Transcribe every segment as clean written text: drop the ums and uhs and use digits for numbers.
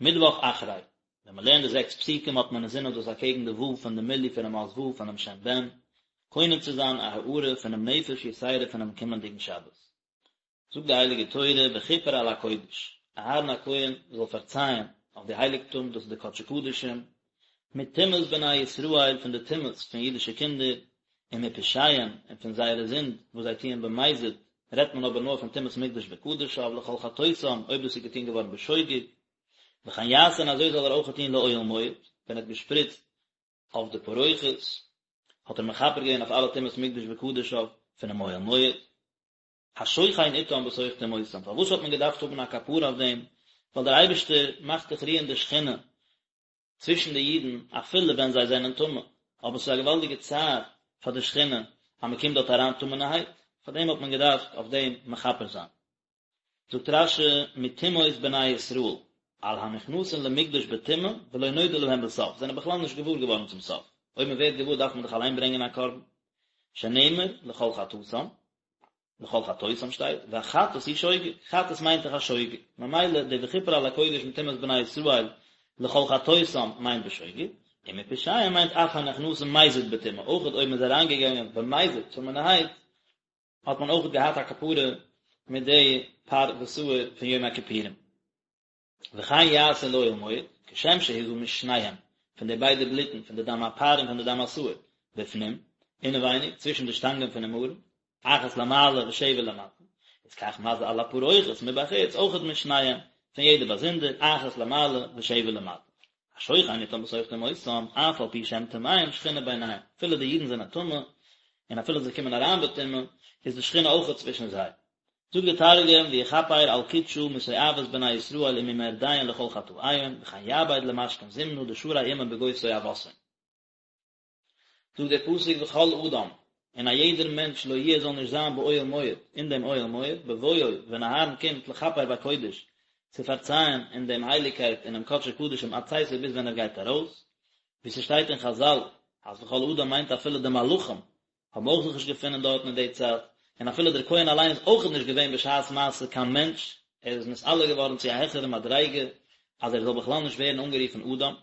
מיטוואך אחרי, ווען מען לערנט די זעקס פסוקים האט מען אינזין אז דאס אקעגן די ו' פון די מילוי פונעם אות ו' פונעם שם בן, קונה צו זיין א הארה פונעם נפש יתירה פונעם קומענדיגן שבת. זאגט די הייליגע תורה וכיפר על הקודש, אהרן הכהן זאל פארצייען אויף די הייליגטום, דאס איז די קדשי קדשים, מטומאת בני ישראל פון די טומאות פון אידישע קינדער, ומפשעיהם און פון זייערע זינד וואס זיי טוען במזיד, רעדט מען אבער נאר פון טומאת מקדש וקדשיו לכל חטאותם אויב דאס איז געטון געווארן בשוגג, וכן יעשה און אזוי זאל ער אויך טון לאוהל מועד, ווען ער האט געשפריצט אויף די פרוכת, האט ער מכפר געווען אויף אלע טומאת מקדש וקדשיו פונעם אוהל מועד. השוכן אתם בתוך טומאותם, פארוואס האט מען געדארפט האבן א כפרה אויף דעם, ווייל דער אייבערשטער מאכט דאך רוען די שכינה צווישן די אידן אפילו ווען זיי זענען טמא, אבער ס'איז א געוואלדיגע צער פאר די שכינה אז מען קומט דארט אריין טמא'נערהייט, פאר דעם האט מען געדארפט אויף דעם מכפר זיין. זאגט רש"י מטומאות בני ישראל, על הנכנסין למקדש בטומאה ולא נודע להם בסוף, זענען בכלל נישט געוואר געווארן צום סוף, אויב מען ווערט געוואר דארף מען דאך אליין ברענגען א קרבן, שנאמר לכל חטאתם, לכל חטאותם שטייט, והחטאת היא שוגג, חטאת מיינט דאך א שוגג, ממילא די וכיפר על הקודש מטומאת בני ישראל לכל חטאותם מיינט בשוגג, ומפשעיהם מיינט אף הנכנסים מזיד בטומאה, אויכעט אויב מען איז אריינגעגאנגען במזיד טמא'נערהייט, האט מען אויכעט געהאט א כפרה מיט די פר ושעיר פון יום הכיפורים. וכן יעשה לאוהל מועד, כשם שהזה משניהם, פון די ביידע בלוטן, פון די דם הפר און פון די דם השעיר, בפנים, אינעווייניג, צווישן די שטאנגען פונעם ארון, אחת למעלה ושבע למטה, איז כך מזה על הפרוכת מבחוץ, אויכעט משניהם, פון יעדע באזונדער, אחת למעלה ושבע למטה. השוכן אתם בתוך טומאותם, אף על פי שהם טמאים, שכינה ביניהם, אפילו די אידן זענען טמא, און אפילו זיי קומען אריין בטומאה, איז די שכינה אויכעט צווישן זיי. זאגט די תרגום ויכפר על קודשא מתועבת בני ישראל וממרדיהון לכל חטאיהון וכן יעביד למשכן זימנא דשרי עמהון בגו תועבתהון. זאגט דער פסוק וכל אדם, און א יעדער מענטש לא יהיה זאל נישט זיין באוהל מועד, אין דעם אוהל מועד, בבואו, ווען אהרן קומט לכפר בקודש, צו פארצייען אין דעם הייליגקייט אינעם קדשי קדשים עד צאתו ביז ווען ער גייט ארויס, ווי ס'שטייט אין חזל אז וכל אדם מיינט אפילו די מלאכים, האבן אויך זיך נישט געפונען דארטן אין די צייט, און אפילו דער כהן אליין איז אויכעט נישט געווען בשעת מעשה קיין מענטש, ער איז נתעלה געווארן צו א העכערע מדריגה אז ער זאל בכלל נישט ווערן אנגערופן אדם.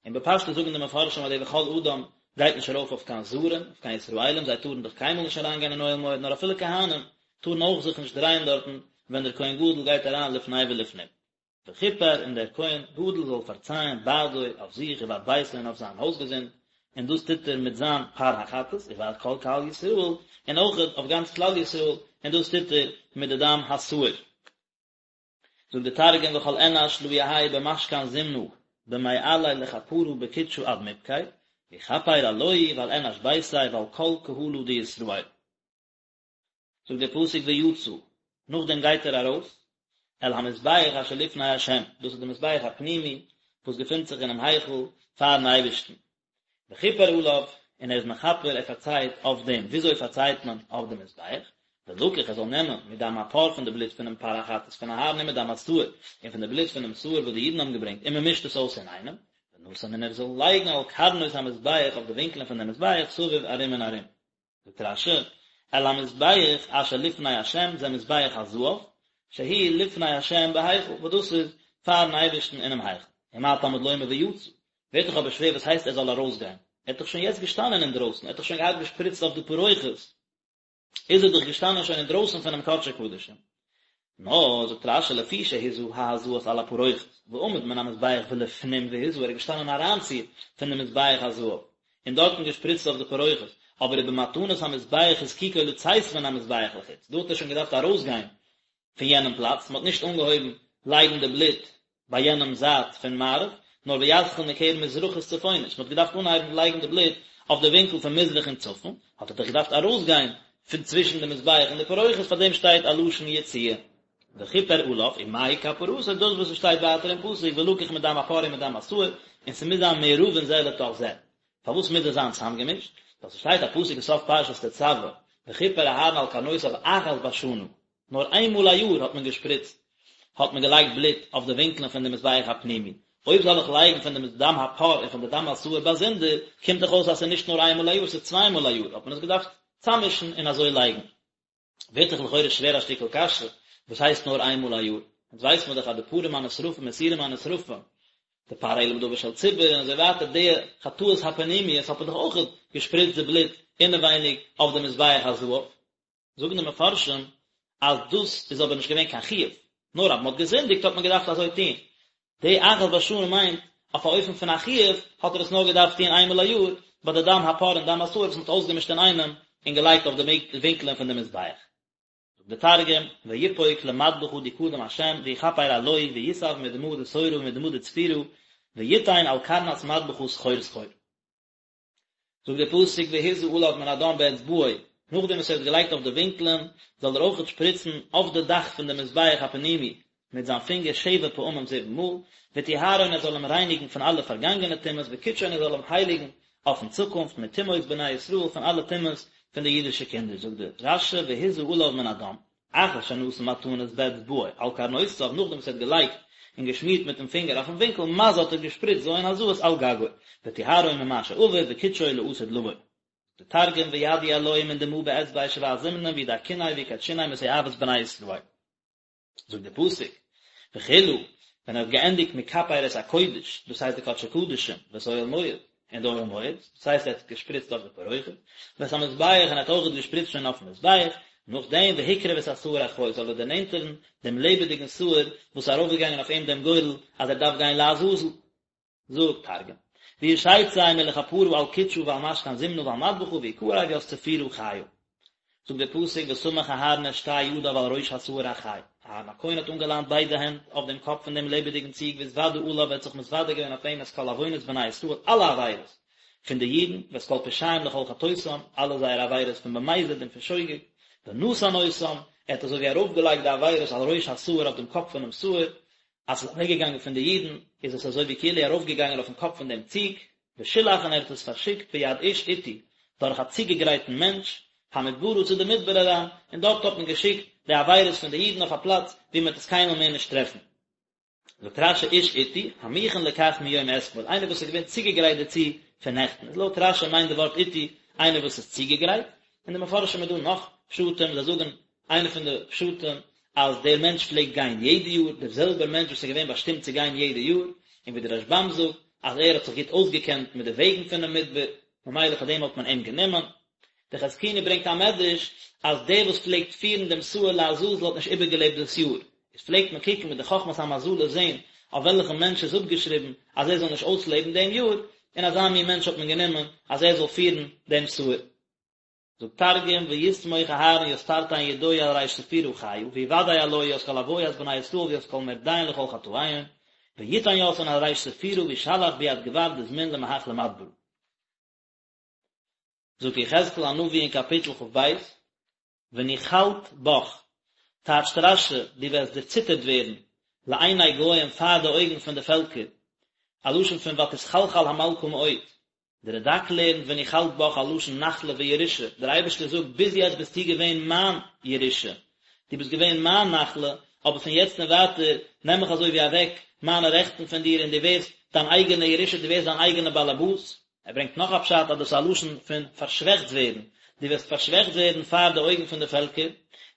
און בפשטות זאגן די מפרשים אז די וכל אדם גייט נישט ארויף אויף קיין זרים, אויף קיין ישראלים, זיי טארן דאך קיינמאל נישט אריינגיין אין אוהל מועד, נאר אפילו כהנים טארן אויך זיך נישט דרייען דארטן ווען דער כהן גדול גייט אריין לפני ולפנים. וכיפר און דער כהן גדול זאל פארצייען בעדו אויף זיך ובעד ביתו און אויף זיין הויזגעזינד, און דאס טוט ער מיט זיין פר החטאת ובעד כל קהל ישראל, און אויכעט אויף גאנץ כלל ישראל, און דאס טוט ער מיט די דם השעיר. זאגט די תרגום וכל אנש לא יהי במשכן זימנא במעליה לכפרא בקודשא עד מבקי, ויכפר עלוהי ועל אנש ביתיה ועל כל קהלא דישראל. זאגט דער פסוק ויצא, נאכדעם גייט ער ארויס, אל המזבח אשר לפני ה', דאס איז די מזבח הפנימי וואס געפינט זיך אינעם היכל פארן אייבערשטן, וכיפר עליו, און ער איז מכפר, ער פארצייט אויף דעם, וויאזוי פארצייט מען אויף די מזבח? ולקח, ער זאל נעמען, מדם הפר פון די בלוט פונעם פר החטאת פון אהרן ומדם השעיר, און פון די בלוט פונעם שעיר וואס די אידן האבן געברענגט, און מען מישט עס אויס אינאיינעם, ונתן און ער זאל לייגן על קרנות המזבח אויף די ווינקלען פון דעם מזבח סביב ארום און ארום. זאגט רש"י, אל המזבח אשר לפני השם זה מזבח הזהב, שהוא לפני השם בהיכל, וואס דאס איז פארן אייבערשטן אינעם היכל. ומה תלמוד לומר ויצא, ווערט דאך אבער שווער וואס הייסט ער זאל ארויסגיין? ער האט דאך שוין יעצט געשטאנען אינדרויסן, ער האט דאך שוין געהאט געשפריצט אויף די פרוכת, איז ער דאך געשטאנען שוין אינדרויסן פונעם קדשי קדשים. נאר, זאגט רש"י, לפי שהזה ההזאות על הפרוכת, ועמד מן המזבח ולפנים והזה, ער איז געשטאנען אריינציר פון די מזבח הזהב, און דארטן געשפריצט אויף די פרוכת, אבער ובמתנת המזבח הזקיקו לצאת מן המזבח לחוץ, דא האט ער שוין געדארפט ארויסגיין פון יענעם פלאץ, מען האט נישט אנגעהויבן לייגן די בלוט ביי יענעם זייט פון מערב, נאר ויתחיל מקרן מזרחית צפונית, מען האט געדארפט אנהייבן לייגן די בלוט אויף די ווינקל פון מזרח און צפון, האט ער דאך געדארפט ארויסגיין פון צווישן די מזבח און די פרוכת, פאר דעם שטייט א לשון יציאה. וכיפר עליו, ומהי כפרתו, דאס וואס עס שטייט ווייטער אין פסוק ולקח מדם הפר ומדם השעיר, און ס'מוז זיין מעורבין זה לתוך זה. פארוואס מוז עס זיין צוזאמגעמישט? ווייל ס'שטייט א פסוק אין סוף פרשת תצוה, וכיפר אהרן על קרנותיו אחת בשנה, נאר איין מאל א יאר האט מען געשפריצט, האט מען געלייגט בלוט אויף די ווינקלען פון די מזבח הפנימי. אויב זאל איך לייגן פון די דם הפר און פון די דם השעיר באזונדער, קומט דאך אויס אז ס'איז נישט נאר איין מאל א יאר, ס'איז צוויי מאל א יאר, האט מען עס געדארפט צאממישן און אזוי לייגן. ווערט דאך לכאורה שווער א שטיקל קשיא, וואס הייסט נאר איין מאל א יאר? אונז ווייסט מען דאך אז די פרים הנשרפים און שעירים הנשרפים, די פר העלם דבר של ציבור און אזוי ווייטער די חטאות הפנימיות האט מען דאך אויך געשפריצט די בלוט אינעווייניג אויף די מזבח הזהב. זאגן די מפרשים אז דאס איז אבער נישט געווען קיין חיוב, נאר אז מען האט געזינדיגט האט מען געדארפט אזוי טון. די אחת בשנה מיינט אויף א אופן פון א חיוב האט ער עס נאר געדארפט טון איינמאל א יאר ביי די דם הפר און דם השעיר וואס מען האט אויסגעמישט אינאיינעם און געלייגט אויף די ווינקלען פון די מזבח. זאגט די תרגום, ויפוק למדבחא די קדם השם ויכפר עלוהי ויסב מדמא דשורא ומדמא דצפירא ויתן על קרנת מדבחא סחור סחור. זאגט דער פסוק והזה עליו מן הדם באצבעו, נאכדעם וואס ער האט געלייגט אויף די ווינקלען, זאל ער אויכעט שפריצן אויף די דאך פון די מזבח הפנימי מיט זיין פינגער שבע פעמים זיבן מאל, וטהרו און ער זאל אים רייניגן פון אלע פארגאנגענע טומאות, וקדשו און ער זאל אים הייליגן אויפן צוקונפט מטומאות בני ישראל פון אלע טומאות פון די אידישע קינדער, זאגט דער רש"י והזה עליו מן הדם. אחר שנתן מתנות באצבעו על קרנותיו, נאכדעם וואס ער האט געלייגט און געשמירט מיטן פינגער אויפן ווינקל, מזה האט ער געשפריצט ז' הזאות על גגו, וטהרו ממה שעבר וקדשו לעתיד לבוא. די תרגום וידי עלוהי מן דמא באצבעיה שבע זימנין וידכיניה ויקדשיניה מתועבת בני ישראל. זאגט דער פסוק, וכלה, ווען ער האט געענדיגט מכפר את הקודש, דאס הייסט די קדשי קדשים, ואת אוהל מועד, און די אוהל מועד, דאס הייסט ער האט געשפריצט אויף די פרוכת, ואת המזבח, און ער האט אויך געשפריצט שוין אויפן מזבח, נאכדעם והקריב את השעיר החי, זאל ער דערנענטערן דעם לעבעדיגן שעיר וואס איז ארויפגעגאנגען אויף אים דעם גורל אז ער דארף גיין לעזאזל. זאגט תרגום, וישיצי מלכפרא על קודשא ועל משכן זימנא ועל מדבחא ויקריב ית צפירא חיא. זאגט דער פסוק וסמך אהרן את שתי ידיו על ראש השעיר החי, אהרן הכהן האט אנגעליינט ביידע הענט אויף דעם קאפ פון דעם לעבעדיגן ציג והתודה עליו ער האט זיך מתוודה געווען אויף אים את כל עוונות בני ישראל אלע עבירות פון די אידן ואת כל פשעיהם לכל חטאותם אלע זייערע עבירות פון במזיד און פון שוגג ונתן אותם ער האט אזוי ווי ארויפגעלייגט די עבירות על ראש השעיר אויף דעם קאפ פונעם שעיר אז ס'איז אוועקגעגאנגען פון די אידן, איז עס אזוי ווי כאילו ארויפגעגאנגען אויפן קאפ פון דעם ציג, ושלח און ער האט עס פארשיקט ביד איש עתי, דורך א צוגעגרייטן מענטש, המדברה צו די מדבר אריין, און דארט האט מען געשיקט די עבירות פון די אידן אויף א פלאץ וואו מען וועט עס קיינמאל מער נישט טרעפן. זאגט רש"י איש עתי, המוכן לכך מיום אתמול, איינער וואס איז געווען צוגעגרייט דערצו פון נעכטן, איז לויט רש"י מיינט די ווארט עתי איינער וואס איז צוגעגרייט, אין די מפרשים איז דא נאך פשטים, זיי זאגן איינע פון די פשטים אז דער מענטש פלעגט גיין יעדע יאר, דער זעלבער מענטש וואס איז געווען באשטימט צו גיין יעדע יאר, און ווי דער רשב"ם זאגט אז ער האט זיך גוט אויסגעקענט מיט די וועגן פונעם מדבר, ממילא פאר דעם האט מען אים גענומען. דער חזקוני ברענגט א מדרש אז דער וואס פלעגט פירן דעם שעיר לעזאזל האט נישט איבערגעלעבט דאס יאר, איז פלעגט מען קוקן מיט די חכמת המזלות זען אויף וועלכן מענטש איז אפגעשריבן אז ער זאל נישט אויסלעבן דעם יאר, און אזא מין מענטש האט מען גענומען אז ער זאל פירן דעם שעיר. זאגט תרגום, ויסמוך אהרן ית תרתין ידוי על ריש צפירא חיא, ויודע עלוהי ית כל עוית בני ישראל וית כל מרדיהון לכל חטאיהון, ויתן יתהון על ריש צפירא וישלח ביד גבר דזמין למהך למדברא. זאגט יחזקאל הנביא אין קאפיטל כ"ב, ונחלת בך, טייטשט רש"י, דו וועסט דערציטערט ווערן, לעיני גוים פאר די אויגן פון די פעלקער, א לשון פון ותתחלחל המלכה מאוד, דער רד"ק לערנט ונחלת בך א לשון נחלה וירושה, דער אייבערשטער זאגט ביז יעצט ביסטו געווען מיין ירושה, דו ביסט געווען מיין נחלה, אבער פון יעצט און ווייטער נעם איך אזוי ווי אוועק מיינע רעכטן פון דיר און דו ווערסט דיין אייגענע ירושה, דו ווערסט דיין אייגענע באלעבאס. ער ברענגט נאך א פשט אז דאס איז א לשון פון פארשוועכט ווערן, דו וועסט פארשוועכט ווערן פאר די אויגן פון די פעלקער,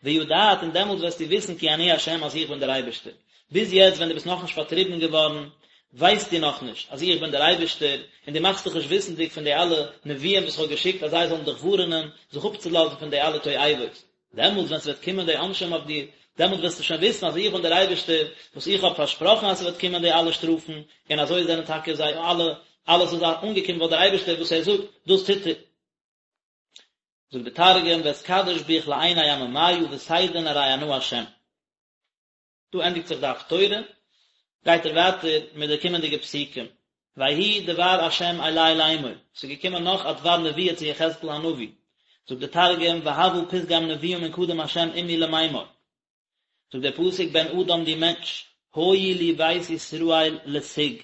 וידעת און דעמאלטס וועסטו וויסן כי אני ה' אז איך בין דער אייבערשטער. ביז יעצט ווען דו ביסט נאכנישט פארטריבן געווארן, ווייסטו נאכנישט אז איך בין דער אייבערשטער, און דו מאכסט דיך נישט וויסנדיג פון די אלע נביאים וואס איך האב געשיקט אז זיי זאלן דיך ווארענען זיך אפצולאזן פון די אלע תועבות. דעמאלטס ווען ס'וועט קומען די עונשים אויף דיר, דעמאלטס וועסטו שוין וויסן אז איך בין דער אייבערשטער, וואס איך האב פארשפראכן אז ס'וועט קומען די אלע שטראפן, און אזוי זענען טאקע זיי אלע, אלעס איז אנגעקומען ווייל דער אייבערשטער וואס ער זאגט, דאס טוט ער. זאגט דער תרגום, ואתקדש ביך לעיני עממיא ותדעון ארי אנא השם. דא ענדיגט זיך די הפטורה, גייט ער ווייטער מיט די קומענדיגע פסוקים, ויהי דבר ה' אלי לאמור, ס'איז געקומען נאך א דבר נבואה צו יחזקאל הנביא, זאגט דער תרגום, והוה פתגם נבואה מן קדם ה' עמי למימר, זאגט דער פסוק, בן אדם דו מענטש, היו לי בית ישראל לסיג,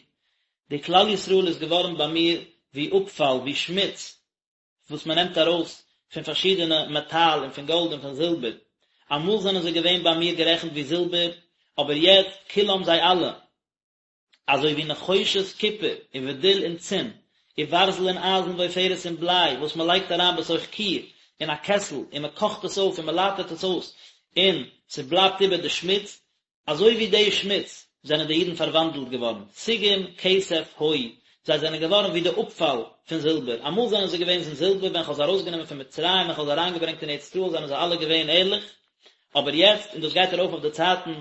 די כלל ישראל איז געווארן ביי מיר ווי אפפאל, ווי שמוץ, וואס מען נעמט ארויס פון פארשידענע מעטאל און פון גאלד און פון זילבער, אמאל זענען זיי געווען ביי מיר גערעכנט ווי זילבער, אבער יעצט כולם זיי אלע, אזוי ווי נחושת קופער ובדיל און צין, וברזל און אייזן ועופרת און בליי, וואס מען לייגט אריין בתוך כור אין א קעסל און מען קאכט עס אויף און מען לייטערט עס אויס און ס'בלייבט איבער די שמוץ. אזוי ווי די שמוץ זענען די אידן פארוואנדלט געווארן, סיגים כסף היו, זיי זענען געווארן ווי די אפפאל פון זילבער, אמאל זענען זיי געוועזן זילבער, ווען כ'האב זיי ארויסגענומען פון מצרים און כ'האב זיי אריינגעברענגט אין ארץ ישראל זענען זיי אלע געווען ערליך, אבער יעצט, און דאס גייט ארויף אויף די צייטן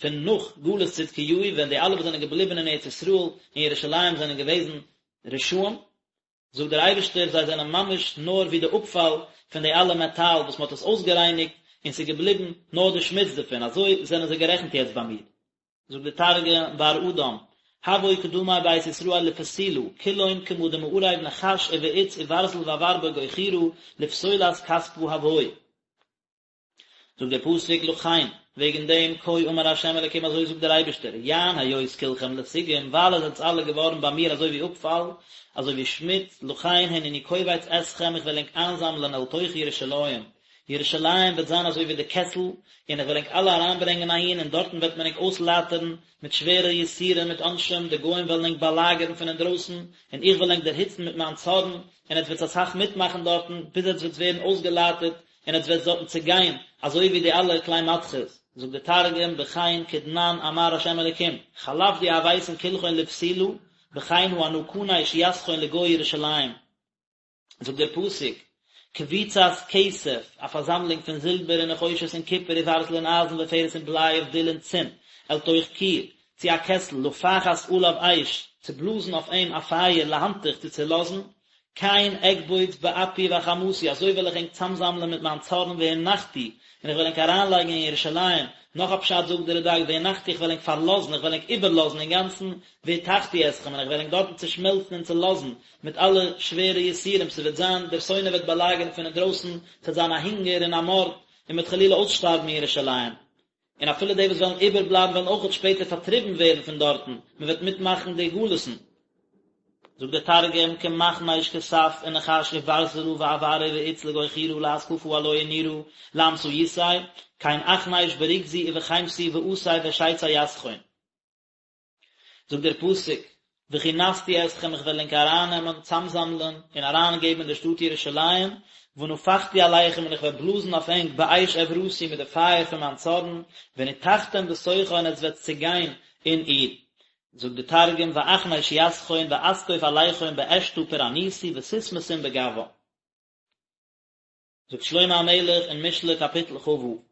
פון נאך גלות צדקיהו, ווען די אלע וואס זענען געבליבן אין ארץ ישראל און ירושלים זענען געוועזן רשעים, זאגט דער אייבערשטער, זיי זענען ממש נאר ווי די אפפאל פון די אלע מעטאל וואס מען האט עס אויסגערייניגט און ס'איז געבליבן נאר די שמוץ דערפון, אזוי זענען זיי גערעכנט יעצט ביי מיר. זאגט דער תרגום, בר אדם, הוו קדמי בית ישראל לפסילא, כולהון כמה דמערב נחש ובעוץ וברזל ואבר בגו חורא, לפסולת כספא הוו. זאגט דער פסוק לכן, וועגן דעם, כה אמר ה' אלקים אזוי זאגט דער אייבערשטער, יען היות כולכם לסיגים, ווייל עטס זענטס אלע געווארן ביי מיר אזוי ווי אפפאל, אזוי ווי שמוץ, לכן הנני קובץ אתכם איך וועל ענק איינזאמלען אל תוך ירושלים, ירושלים וועט זיין אזוי ווי די קעסל, און איך וועל ענק אלע אריינברענגען אהין, און דארטן וועט מען ענק אויסלייטערן מיט שווערע יסורים מיט עונשים, די גוים וועלן ענק באלאגערן פון אינדרויסן, און איך וועל ענק דערהיצן מיט מיין צארן, און עטס וועטס אסאך מיטמאכן דארטן, ביז עטס וועטס ווערן אויסגעלייטערט, און עטס וועטס דארטן צעגיין, אזוי ווי די אלע כלי מתכות, זאגט דער תרגום, בכן כדנן אמר ה' אלקים, חלף די הויתון כולכון לפסילא, בכן הא אנא כניש יתכון לגו ירושלים. זאגט דער פסוק, קבוצת כסף, א פארזאמלונג פון זילבער און נחושת און קופער וברזל און אייזן ופרש און בליי ובדיל און צין, אל תוך כור, צו א קעסל, לפחת עליו אש, צו בלאזן אויף אים א פייער, להנתיך, צו צעלאזן, כן אקבוץ באפי ובחמתי, אזוי וועל איך ענק צאמזאמלען מיט מיין צארן והנחתי, און איך וועל ענק אריינלייגן אין ירושלים, נאך א פשט זאגט דער רד"ק והנחתי איך וועל ענק פארלאזן, איך וועל ענק איבערלאזן אינגאנצן, והתכתי אתכם, און איך וועל ענק דארטן צעשמעלצן און צעלאזן, מיט אלע שווערע יסורים, ס'וועט זיין, דער שונא וועט באלאגערן פון אינדרויסן, ס'וועט זיין א הונגער און א מארד, און מ'וועט חלילה אויסשטארבן אין ירושלים. און אפילו די וואס וועלן איבערבלייבן וועלן אויכעט שפעטער פארטריבן ווערן פון דארטן, מען וועט מיטמאכן די גלות'ן. זאגט דער תרגום, כמכניש כסף ונחש וברזלא ואברא ועוץ לגו חורא לאתקפא עלוהי נורא לאמתאיתיה, כן אכניש ברוגזי ובחימתי ואתי ואשיצי יתכון. זאגט דער פסוק, וכנסתי אתכם איך וועל ענק ארייננעמען, צאמזאמלען, און אריינגעבן אין די שטאט ירושלים, ונפחתי עליכם און איך וועל בלאזן אויף ענק באש עברתי מיט די פייער פון מיין צארן, ונתכתם בתוכה און עטס וועטס צעגיין אין איר. זאגט דער תרגום, ואכניש יתכון ואתקוף עליכון באשתא פורענותי ותתמתון בגווה. זאגט שלמה המלך אין משלי קאפיטל כ"ו,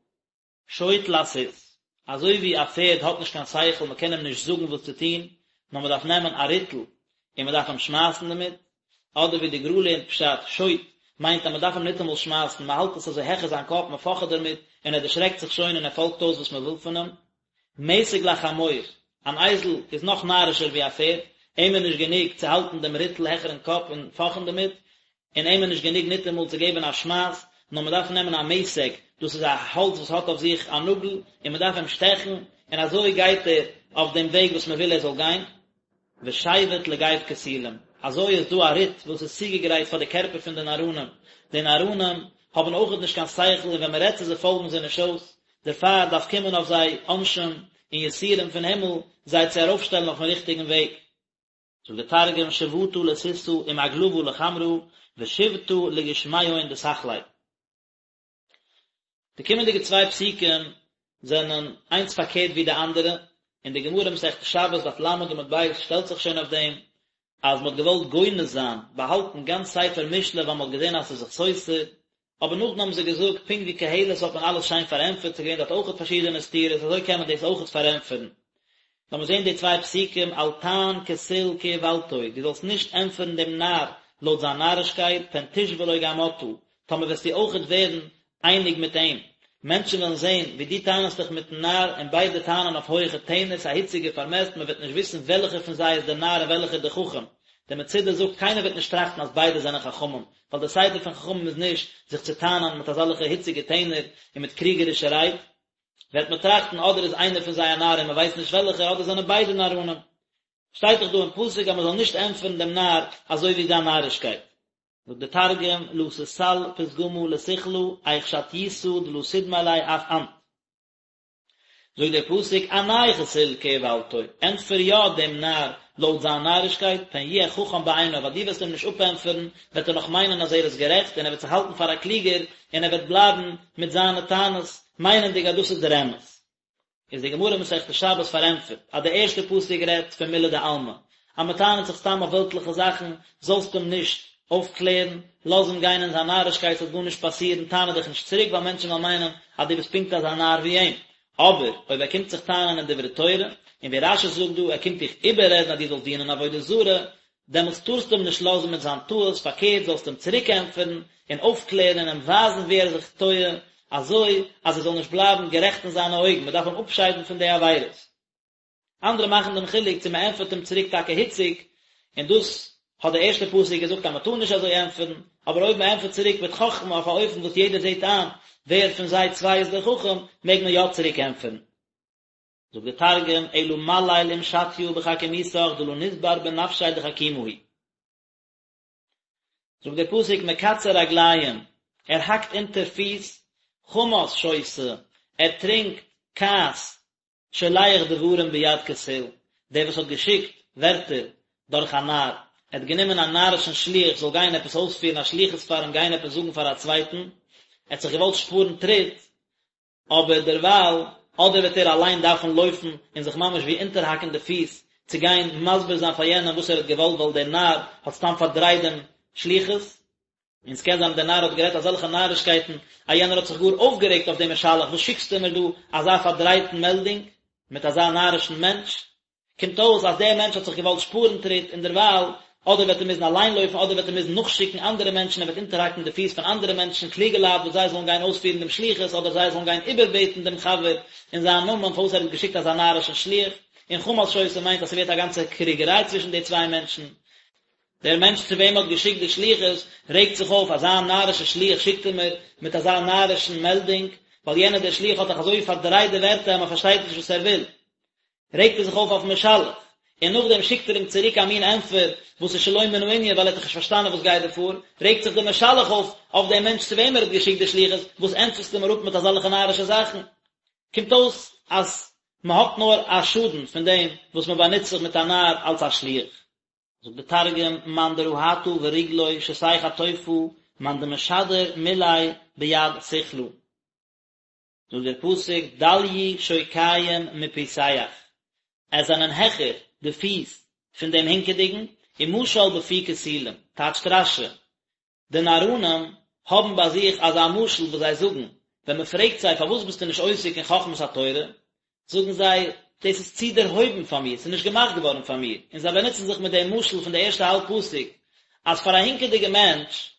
שוט לסוס, אזוי ווי א פערד האט נישט קיין שכל מען קען אים נישט זאגן וואס צו טון, נאר מען דארף נעמען א ריטל און מען דארף אים שמייסן דערמיט, אדער ווי די גר"א לערנט פשט, שוט מיינט אז מען דארף אים ניטאמאל שמייסן, מען האלט עס אזוי העכער זיין קאפ, מען פאכעט דערמיט, און ער דערשרעקט זיך שוין און ער פאלגט אויס וואס מען וויל פון אים. מתג לחמור, אן אייזל איז נאך נארישער ווי א פערד, אים איז נישט גענוג צו האלטן דעם ריטל העכערן קאפ און פאכען דערמיט, און אים איז נישט גענוג ניטאמאל צו געבן א שמייס, נאר מען דארף נעמען א מתג, דאס איז א האלץ וואס האט אויף זיך א נאגל, און מען דארף אים שטעכן, און אזוי גייט ער אויף דעם וועג וואס מען וויל ער זאל גיין. ושבט לגו כסילים, אזוי איז דא א ריט וואס איז צוגעגרייט פאר די קערפער פון די נאראנים, די נאראנים האבן אויכעט נישט קיין שכל און ווען מען רעדט צו זיי פאלגן זיי נישט אויס, דערפאר דארף קומען אויף זיי עונשים און יסורים פון הימל זיי צו ארויפשטעלן אויפן ריכטיגן וועג. זאגט דער תרגום שבטא לסוסא ומגלבא לחמרא ושיבטא לגושמיהון דסכלי. די קומענדיגע צוויי פסוקים זענען איינס פארקערט ווי די אנדערע, און די גמרא מסכת שבת דף ל עמוד ב' שטעלט זיך שוין אויף דעם אז מען האט געוואלט גונז זיין, באהאלטן גאנץ ספר משלי ווייל מען האט געזען אז ס'איז זיך סותר, אבער נאכדעם האבן זיי געזאגט פונקט ווי קהלת האט מען אלעס שיין פארענטפערט, ס'איז געווען דארט אויכעט פארשידענע סתירות, אזוי קען מען דאס אויכעט פארענטפערן. לאמיר זען די צוויי פסוקים, אל תען כסיל כאולתו, דו זאלסט נישט ענטפערן דעם נאר לויט זיין נארישקייט, פן תשווה לו גם אתה, טאמער וועסטו אויכעט ווערן אייניג מיט אים. מענטשן וועלן זען ווי דו טענה'סט דיך מיטן נאר, און ביידע טענה'ן אויף הויעכע טענער, ס'איז א היציגע פארמעסט, מען וועט נישט וויסן וועלכער פון זיי איז דער נאר און וועלכער דער חכם. דער מצודה זאגט, קיינער וועט נישט טראכטן אז ביידע זענען חכמים, ווייל דער סדר פון חכמים איז נישט זיך צו טענה'ן מיט אזעלכע היציגע טענער און מיט קריגערישע רייד. וועט מען טראכטן אדער איז איינער פון זיי א נאר און מען ווייסט נישט וועלכער, אדער זענען ביידע נאראנים. שטייט דאך דא אין פסוק אז מען זאל נישט ענטפערן דעם נאר אזוי ווי זיין נארישקייט. זאגט דער תרגום, לא תסל פתגמא לסכלא, איך שטיותא דלא תדמי ליה אף אנת. זאגט דער פסוק, ענה כסיל כאולתו, ענטפער יא דעם נאר לויט זיין נארישקייט, פן יהיה חכם בעיניו, אז דו וועסט אים נישט אפענטפערן, וועט ער נאך מיינען אז ער איז גערעכט, און ער וועט זיך האלטן פאר א קלוגער, און ער וועט בלייבן מיט זיינע טענות, מיינענדיג אז דאס איז דער אמת. איז די גמרא מסכת שבת פארענטפערט אז די ערשטע פסוק רעדט פון מילי דעלמא, אז מען טענה'ט זיך סתם אויף וועלטליכע זאכן, זאלסט אים נישט אויפקלערן, לאז אים גיין אין זיין נארישקייט ס'וועט גארנישט פאסירן, טענה דיך נישט צוריק ווייל מענטשן וועלן מיינען אז דו ביסט פונקט אזא נאר ווי אים. אבער אויב ער קומט זיך טענה'ן אין דברי תורה, און ווי רש"י זאגט דא, ער קומט דיך איבעררעדן אז דו זאלסט דינען עבודה זרה, דעמאלטס טארסטו אים נישט לאזן מיט זיין טעות, פארקערט זאלסטו אים צוריק ענטפערן און אויפקלערן און אים ווייזן וואו ער איז זיך טועה, אזוי אז ער זאל נישט בלייבן גערעכט אין זיינע אויגן, מען דארף אים אפשיידן פון די עבירות. אנדערע מאכן דעם חילוק צו מען ענטפערט אים צוריק טאקע היציג, און דאס האט דער ערשטער פסוק געזאגט אז מען טאר נישט אזוי ענטפערן, אבער אויב מען ענטפערט צוריק מיט חכמה אויף א אופן וואס יעדער זעט איין ווער פון זיי צוויי איז דער חכם, מעג מען יא צוריק ענטפערן. זאגט דער תרגום, אלא מליל עם שטיא בחכימותך דלא נסבר בנפשיה דחכימא הוא. זאגט דער פסוק מקצר רגליים, ער האקט אונטער פיס, חמס שותה, ער טרינקט כעס, שולח דברים ביד כסיל, דער וואס האט געשיקט ווערטער דורך א נאר, ער האט גענומען א נארישן שליח זאל גיין עפעס אויספירן א שליחות פאר אים גיין עפעס זאגן פאר א צווייטן, ער האט זיך געוואלט שפארן טריט, אבער דערווייל, אדער וועט ער אליין דארפן לויפן און זיך ממש ווי אונטערהאקן די פיס צו גיין מסביר זיין פאר יענעם וואס ער האט געוואלט ווייל דער נאר האט סתם פארדרייט דעם שליחות, און ס'קען זיין אז דער נאר האט גערעדט אזעלכע נארישקייטן אז יענער האט זיך גאר אויפגערעגט אויף דעם משלח, וואס שיקסטו מיר דא אזא פארדרייטן מעלדונג מיט אזא נארישן מענטש? קומט אויס אז דער מענטש האט זיך געוואלט שפארן טריט און דערווייל אדער וועט ער מוזן אליין לויפן אדער וועט ער מוזן נאכשיקן אנדערע מענטשן ער וועט אונטערהאקן די פיס פון אנדערע מענטשן קלוגע לייט וואס זיי זאלן גיין אויספירן דעם שליחות אדער זיי זאלן גיין איבערבעטן דעם חבר אין זיין נאמען פארוואס ער האט געשיקט אזא נארישן שליח און חמס שותה מיינט אז ס'ווערט א גאנצע קריגעריי צווישן די צוויי מענטשן. דער מענטש צו וועם מ'האט געשיקט די שליחות רעגט זיך אויף, אזא נארישע שליח שיקט ער מיר מיט אזא נארישן מעלדונג, ווייל יענער דער שליח האט דאך אזוי פארדרייט די ווערטער אז מ'פארשטייט נישט וואס ער וויל. רעגט ער זיך אויף אויפן משלח, און נאכדעם שיקט ער אים צוריק א מין ענטפער וואס איז שלא מן הענין ווייל ער האט דאך נישט פארשטאנען וואס גייט דא פאר, רעגט זיך דער משלח אויף אויף דעם מענטש צו וועם ער האט געשיקט די שליחות, וואס ענטפערסטו מיר אפ מיט אזעלכע נארישע זאכן? קומט אויס אז מען האט נאר א שאדן פון דעם וואס מען באנוצט זיך מיט א נאר אלס א שליח. זאגט דער תרגום, מאן דרהטא ורגלוי שתי חטופא, מאן דמשדר מילי ביד סכלא. זאגט דער פסוק דליו שוקיים מפוסח, עס זענען העכער די פיס פון דעם הינקעדיגן, ומשל בפי כסילים, טייטשט רש"י, די נאראנים האבן ביי זיך אזא משל וואס זיי זאגן, ווען מען פרעגט זיי פארוואס ביסטו נישט עוסק אין חכמת התורה, זאגן זיי, דאס איז צו דערהויבן פאר מיר, ס'איז נישט געמאכט געווארן פאר מיר, און זיי באנוצן זיך מיט דעם משל פון די ערשטע האלב פסוק, אז פאר א הינקעדיגע מענטש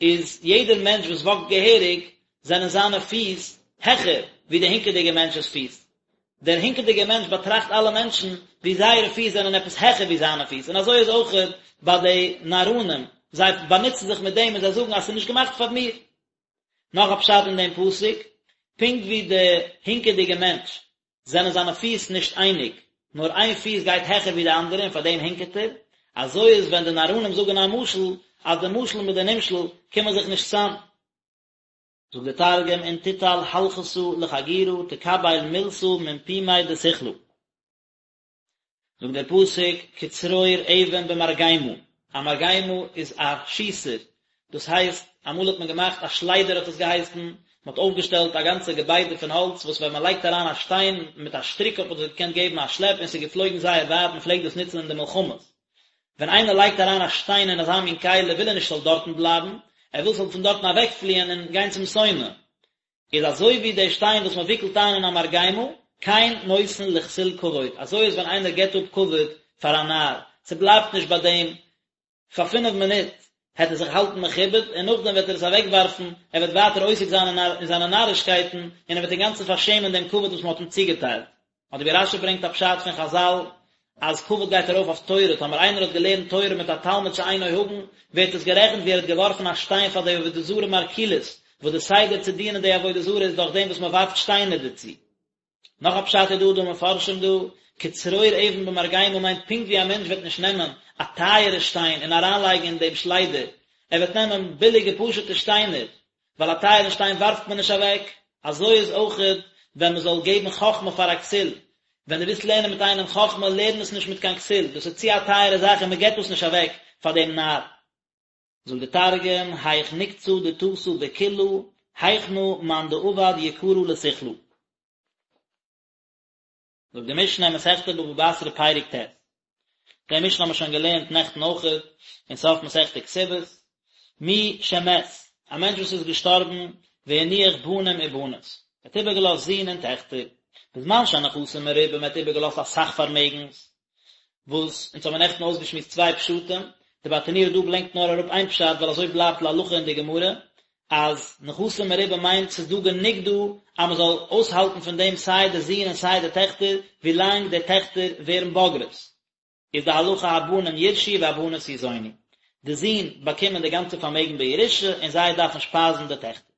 איז יעדער מענטש וואס וואקט געהעריג זענען זיינע פיס העכער ווי דער הינקעדיגער מענטש'ס פיס. דער הינקעדיגער מענטש באטראכט אלע מענטשן ווי זייערע פיס זענען עפעס העכער ווי זיינע פיס, און אזוי איז אויכעט ביי די נאראנים, זיי באנוצן זיך מיט דעם און זיי זאגן אז ס'איז נישט געמאכט פאר מיר. נאך א פשט אין דעם פסוק, פונקט ווי דער הינקעדיגער מענטש זענען זיינע פיס נישט אייניג, נאר איין פיס גייט העכער ווי די אנדערע און פאר דעם הינקעט ער, אזוי איז ווען די נאראנים זאגן א משל, אז די משל מיט די נמשל קומען זיך נישט צאם. זאגט דער תרגום אין תיטל הלכתא לחגירא תקביל מילתא מן פומיה דסכלא. זאגט דער פסוק כצרור אבן במרגמה, א מרגמה איז א שיסער, דאס הייסט אמאל האט מען געמאכט א שליידער האט עס געהייסן, מען האט אויפגעשטעלט א גאנצע געביידע פון האלץ וואס ווען מען לייגט אריין א שטיין מיט א שטריק האט מען דאס געקענט געבן א שלעפ און ס'איז געפלויגן זייער ווייט, מען פלעגט דאס נוצן אין די מלחמות. ווען איינער לייגט אריין א שטיין אין אזא מין כלי וויל ער נישט ס'זאל דארטן בלייבן, ער וויל ס'זאל פון דארטן אוועקפליען און גיין צום שונא. איז אזוי ווי דער שטיין וואס מען וויקלט איין אין א מרגמה, כן נותן לכסיל כבוד, אזוי איז ווען איינער געבט אפ כבוד פאר א נאר, ס'בלייבט נישט ביי דעם, פאר פינף מינוט העט ער זיך האלטן מכובד, און נאכדעם וועט ער עס אוועקווארפן, ער וועט ווייטער עוסק זיין אין זיינע נארישקייטן, און ער וועט אינגאנצן פארשעמען דעם כבוד וואס מען האט אים צוגעטיילט. אדער ווי רש"י ברענגט א פשט פון חז"ל אז כבוד גייט ארויף אויף תורה, טאמער איינער האט געלערנט תורה מיט א תלמיד שאינו הגון, ווערט עס גערעכנט ווי ער האט געווארפן א שטיין פאר די עבודה זרה מרקוליס, וואס די סדר צו דינען די עבודה זרה איז דורך דעם וואס מען ווארפט שטיינער דערצו. נאך א פשט איז דא דא מפרשים דא, כצרור אבן במרגמה מיינט פונקט ווי א מענטש וועט נישט נעמען א טייערע שטיין און אריינלייגן אין דעם שליידער, ער וועט נעמען ביליגע פשוטע שטיינער, ווייל א טייערן שטיין ווארפט מען נישט אוועק, אזוי איז אויכעט ווען מען זאל געבן חכמה פאר א כסיל, ווען דו ווילסט לערנען מיט איינעם חכמה, לערן עס נישט מיט קיין כסיל, דאס איז צו א טייערע זאך און מען געבט דאס נישט אוועק פאר דעם נאר. זאגט דער תרגום, היך נקצא דתתא בקילא, היכנא מאן דעבד יקרא לסכלא. זאגט די משנה אין מסכת בבא בתרא פרק ט', די משנה האבן מיר שוין געלערנט נעכטן אויכעט, אין סוף מסכת כתובות, מי שמת, א מענטש וואס איז געשטארבן, והניח בנים ובנות, ער האט איבערגעלאזט זין און טעכטער, בזמן שהנכסים מרובים, ער האט איבערגעלאזט אסאך פארמעגנס, וואס אונז האבן נעכטן אויסגעשמועסט צוויי פשטים, די ברטנורא דא ברענגט נאר אראפ איין פשט ווייל אזוי בלייבט להלכה אין די גמרא, אז נכסים מרובים מיינט ס'איז דא גענוג דא אז מ'זאל אויסהאלטן פון דעם סיי די זין און סיי די טעכטער ווילאנג די טעכטער ווערן בוגרות, איז די הלכה הבנים יירשו והבנות יזונו, די זין באקומען די גאנצע פארמעגן בירושה און זיי דארפן שפייזן די טעכטער.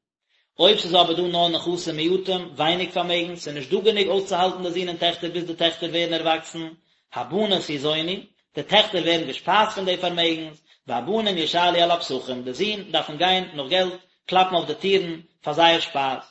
אויב ס'איז אבער דא נאר נכסים מועטים, ווייניג פארמעגן, ס'איז נישט דא גענוג אויסצוהאלטן די זין און טעכטער ביז די טעכטער ווערן ערוואקסן, הבנות יזונו, די טעכטער ווערן געשפייזט פון די פארמעגנס, והבנים ישאלו על הפתחים, די זין דארפן גיין נאך געלט, קלאפן אויף די טירן, פאר זייער שפייז.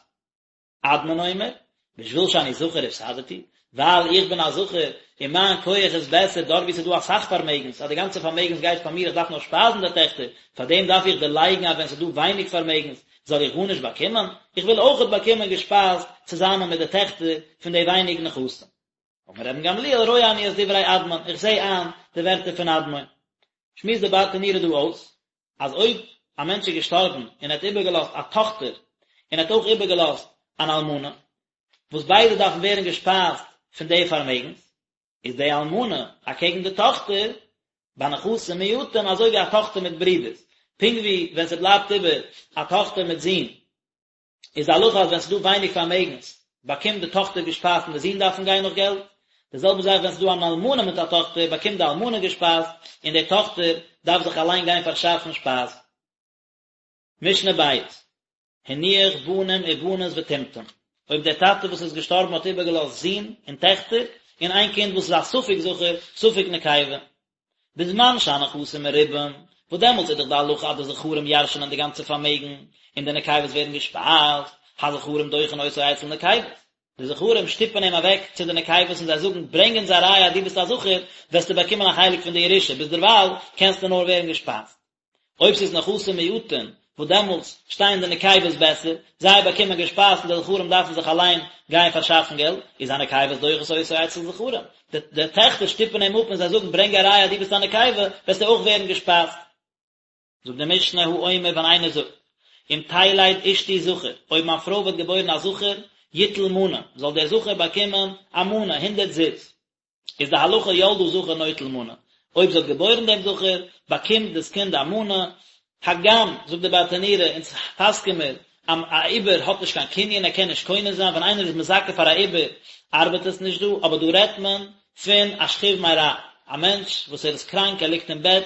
אדמון אומר, בשביל שאני זכר הפסדתי, ווייל איך בין א זכר און מיין כח איז בעסער דארט וואו ס'איז דא אסאך פארמעגנס, אז די גאנצע פארמעגנס גייט פאר מיר איך דארף נאר שפייזן די טעכטער, פאר דעם דארף איך דערלייגן אז ווען ס'איז דא ווייניג פארמעגנס זאל איך גארנישט באקומען, איך וויל אויכעט באקומען געשפייזט צוזאמען מיט די טעכטער פון די ווייניג נכסים. אמר רבן גמליאל רואה אני את דברי אדמון, איך זע איין די ווערטער פון אדמון. שמועסט די ברטנורא דא אויס, אז אויב א מענטש איז געשטארבן און ער האט איבערגעלאזט א טאכטער און ער האט אויך איבערגעלאזט אן אלמנה, וואס ביידע דארפן ווערן געשפייזט פון די פארמעגנס, איז די אלמנה אקעגן די טאכטער ביי נכסים מועטים אזוי ווי א טאכטער מיט ברידערס, פונקט ווי ווען ס'בלייבט איבער א טאכטער מיט זין, איז די הלכה אז ווען ס'איז דא ווייניג פארמעגנס באקומט די טאכטער געשפייזט און די זין דארפן גיין נאך געלט, די זעלבע זאך ווען ס'איז דא אן אלמנה מיט א טאכטער באקומט די אלמנה געשפייזט און די טאכטער דארף זיך אליין גיין פארשאפן שפייז. משנה בית, הניח בנים ובנות וטומטום, אויב דער טאטע וואס איז געשטארבן האט איבערגעלאזט זין און טעכטער, און איין קינד וואס איז א ספק זכר ספק נקבה, בזמן שהנכסים מרובים, וואס דעמאלטס איז דאך די הלכה אז די זכרים ירש'נען די גאנצע פארמעגן, און די נקבות ווערן געשפייזט, הזכרים דוחין אותו אצל נקבות, די זכרים שטופן אים אוועק צו די נקבות און זיי זאגן, ברענג אונז א ראיה אז דו ביסט א זכר, וועסטו באקומען א חלק פון די ירושה, ביזדערווייל קענסטו נאר ווערן געשפייזט. אויב ס'איז נכסים מועטין, וואס דעמאלטס שטייען די נקבות בעסער, זיי באקומען געשפייזט און די זכרים דארפן זיך אליין גיין פארשאפן געלט, איז הנקבות דוחות אותו אצל זכרים, די די טעכטער שטופן אים אפ און זיי זאגן ברענג א ראיה אז דו ביסט א נקבה, וועסטו אויך ווערן געשפייזט. זאגט די משנה האומר ווען איינער זאגט, אם תלד אשתי זכר, אויב מיין פרוי וועט געבוירן א זכר, יטול מנה, זאל דער זכר באקומען א מנה, הונדערט זוז. איז די הלכה ילדה זכר נוטל מנה, אויב זי האט געבוירן דעם זכר, באקומט דאס קינד א מנה, הגם, זאגט די ברטנורא, אונז פסק'ען מיר, אז א עובר האט נישט קיין קנין, ער קען נישט קונה זיין, ווען איינער איז מזכה פאר א עובר, ארבעט עס נישט דא, אבער דא רעדט מען פון א שכיב מרע, א מענטש וואס ער איז קראנק, ער ליגט אין בעט,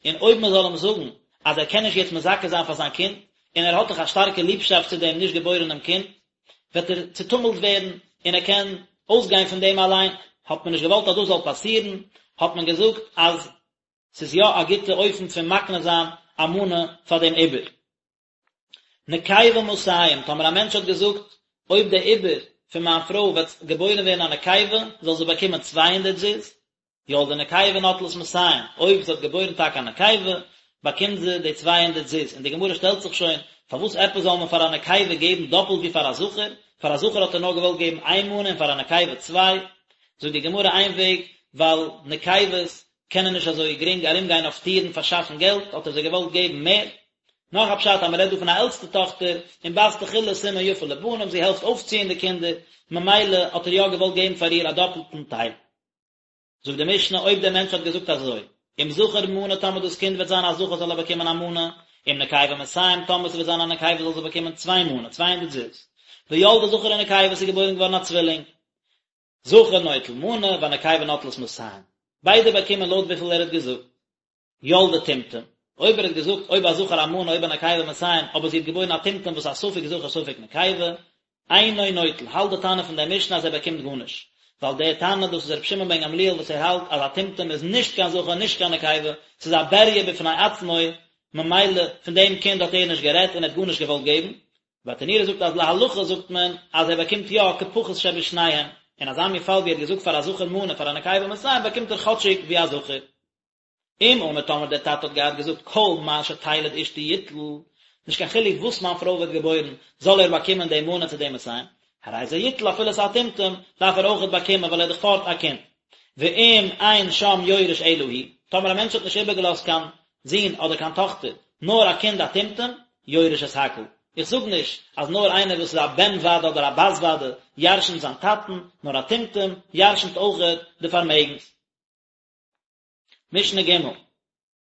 און אויב מען זאל אים זאגן אז ער קען נישט יעצט מזכה זיין פאר זיין קינד, און ער האט דאך א שטארקע ליבשאפט צו דעם נישט געבוירענעם קינד, וועט ער צעטומלט ווערן און ער קען אויסגיין פון דעם אליין, האט מען נישט געוואלט אז דאס זאל פאסירן, האט מען געזאגט אז ס'איז יא א גוטע אופן פון מקנה זיין א מנה פאר דעם עובר. נקבה מאתים, טאמער א מענטש האט געזאגט, אויב דער עובר פון מיין פרוי וועט געבוירן ווערן א נקבה, זאל זי באקומען צוויי הונדערט זוז, ילדה נקבה נוטלת מאתים, אויב זי האט געבוירן טאקע א נקבה, באקומט זי די צוויי הונדערט זוז, און די גמרא שטעלט זיך שוין, פארוואס עפעס זאל מען פאר א נקבה געבן דאפלט ווי פאר א זכר, פאר א זכר האט ער נאר געוואלט געבן איין מנה און פאר א נקבה צוויי, זאגט די גמרא איין וועג, ווייל נקבות קענען נישט אזוי גרינג ארום גיין אויף טירן פארשאפן געלט, האט ער זיי געוואלט געבן מער. נאך א פשט אז מען רעדט דא פון א עלטסטע טאכטער, און בת תחילה סימן יפה לבנים, זי העלפט אויפציען די קינדער, ממילא האט ער יא געוואלט געבן פאר איר א דאפלטן טייל. זאגט די משנה אויב דער מענטש האט געזאגט אזוי, אם זכר מנה טאמער דאס קינד וועט זיין א זכר זאל ער באקומען א מנה, אם נקבה מאתים טאמער ס'וועט זיין א נקבה זאל זי באקומען צוויי מנה, 200 זוז. וילדה זכר ונקבה ס'איז געבוירן געווארן א צווילינג. זכר נוטל מנה והנקבה נוטלת מאתים. ביידע באקומען לויט וויפיל ער האט געזאגט. ילדה טומטום, אויב ער האט געזאגט אויב א זכר א מנה אויב א נקבה מאתים, אבער זי האט געבוירן א טומטום וואס א ספק זכר ספק נקבה, אינו נוטל, האלט די תנא פון דער משנה אז ער באקומט גארנישט, ווייל דער תנא דאס איז רבי שמעון בן גמליאל וואס ער האלט אז א טומטום איז נישט קיין זכר נישט קיין נקבה, ס'איז א בריה בפני עצמו, ממילא פון דעם קינד האט ער נישט גערעדט און ער האט גארנישט געוואלט געבן. ברטנורא זאגט אז להלכה זאגט מען אז ער באקומט יא כפחות שבשניהם, אין אזא מין פאל ווי ער האט געזאגט פאר א זכר מנה פאר א נקבה מאתים באקומט ער כאטשיג ווי א זכר. אם אמר טאמער דער טאטע האט געהאט געזאגט כל מה שתלד אשתי יטול, נישט קיין חילוק וואס מיין פרוי וועט געבוירן, זאל ער באקומען די מנה צו די מאתים. הרי זה יטול אפילו ס'איז א טומטום דארף ער אויכעט באקומען ווייל ער איז דאך פארט א קינד. ואם אין שם יורש אלא הוא, טאמער א מענטש האט נישט איבערגעלאזט קיין זון אדער קיין טאכטער, נאר א קינד א טומטום, יורש את הכל. איך זאג נישט אז נאר איינער וואס איז א בן ודאי אדער א בת ודאי ירשנ'ט זיין טאטן, נאר א טומטום ירשנ'ט אויכעט די פארמעגנס. משנה ג'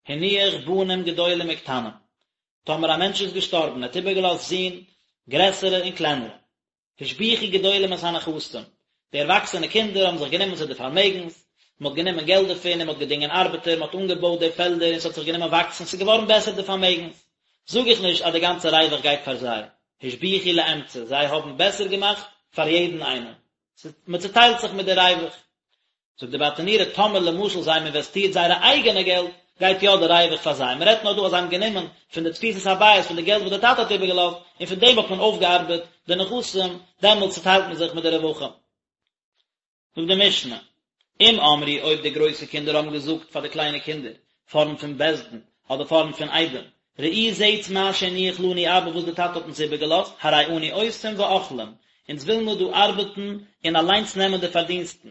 הניח בנים גדולים וקטנים, טאמער א מענטש איז געשטארבן און האט איבערגעלאזט זין, גרעסערע און קלענערע, השביחו גדולים את הנכסים, די ערוואקסענע קינדער האבן זיך גענומען צו די פארמעגנס, מען האט גענומען געלט דערפון און מען האט געדינגען ארבעטער, מען האט אנגעבויט די פעלדער און ס'האט זיך גענומען וואקסן, ס'איז געווארן בעסער די פארמעגנס, זאג איך נישט אז די גאנצע רווח גייט פאר זיי, השביחו לאמצע, זיי האבן בעסער געמאכט פאר יעדן איינעם, מען צוטיילט זיך מיט די רווח. זאגט די ברטנורא טאמער למשל זיי האבן אינוועסטירט זייערע אייגענע געלט גייט יא די רווח פאר זיי, מען רעדט נאר דא אז זיי האבן גענומען פון די תפיסת הבית פון די געלט וואס די טאטע האט איבערגעלאזט און פון דעם האט מען אויפגעארבעט די נכסים, דעמאלטס צוטיילט מען זיך מיט די רווחים. זאגט די משנה, אם אמרו אויב די גרויסע קינדער האבן געזאגט פאר די קליינע קינדער פארנט פון בית דין אדער פארנט פון עדים, ראו זעטס מה שהניח לנו אבא וואס די טאטע האט אונז איבערגעלאזט, הרי אנו עושים ואוכלים, אונז וויל מיר דא ארבעטן און אליינס נעמען די פארדינסטן,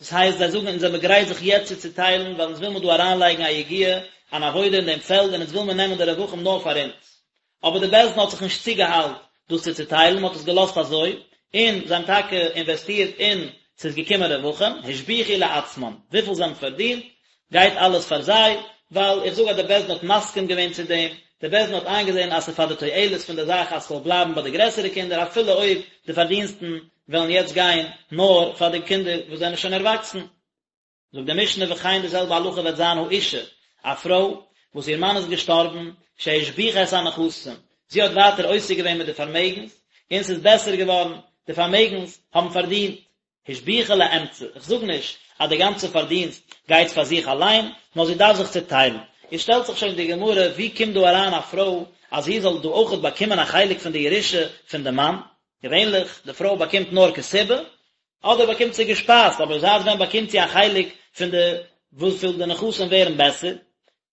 דאס הייסט זיי זאגן אונז זעמיר גרייט זיך יעצט צו צוטיילן ווייל אונז וויל מיר דא אריינלייגן א יגיעה, אן עבודה אין דעם פעלד און אונז וויל מיר נעמען די רווחים נאר פאר אונז. אבער די בית דין האט זיך נישט צוגעאיילט דאס צו צוטיילן, מען האט עס געלאזט אזוי, און זיי האבן טאקע אינוועסטירט און ס'איז געקומען רווחים, השביחו לעצמן, וויפיל זיי האבן פארדינט גייט אלעס פאר זיי, ווייל איך זאג אז די בית דין האט מסכים געווען צו דעם, די בית דין האט איינגעזען אז ס'איז פאר די תועלת פון די זאך אז ס'זאל בלייבן ביי די גרעסערע קינדער אפילו אויב די פארדינסטן וועלן יעצט גיין נאר פאר די קינדער וואס זענען שוין ערוואקסן. זאגט די משנה וכן די זעלבע הלכה וועט זיין האשה, א פרוי וואס איר מאן איז געשטארבן, שהשביחה את הנכסים, זי האט ווייטער עוסק געווען מיט די פארמעגנס, און ס'איז בעסער געווארן, די פארמעגנס האבן פארדינט, השביחה לאמצע, איך זאג נישט אז די גאנצע פארדינסט גייט פאר זיך אליין, נאר זי דארף זיך צוטיילן. איז שטעלט זיך שוין די גמרא, ווי קומט דא אריין א פרוי אז זי זאל דא אויכעט באקומען א חלק פון די ירושה פון די מאן? געווענליך, די פרוי באקומט נאר כתובה, אדער באקומט זי געשפייזט, אבער זייט ווען באקומט זי א חלק פון די וויפיל די נכסים ווערן בעסער?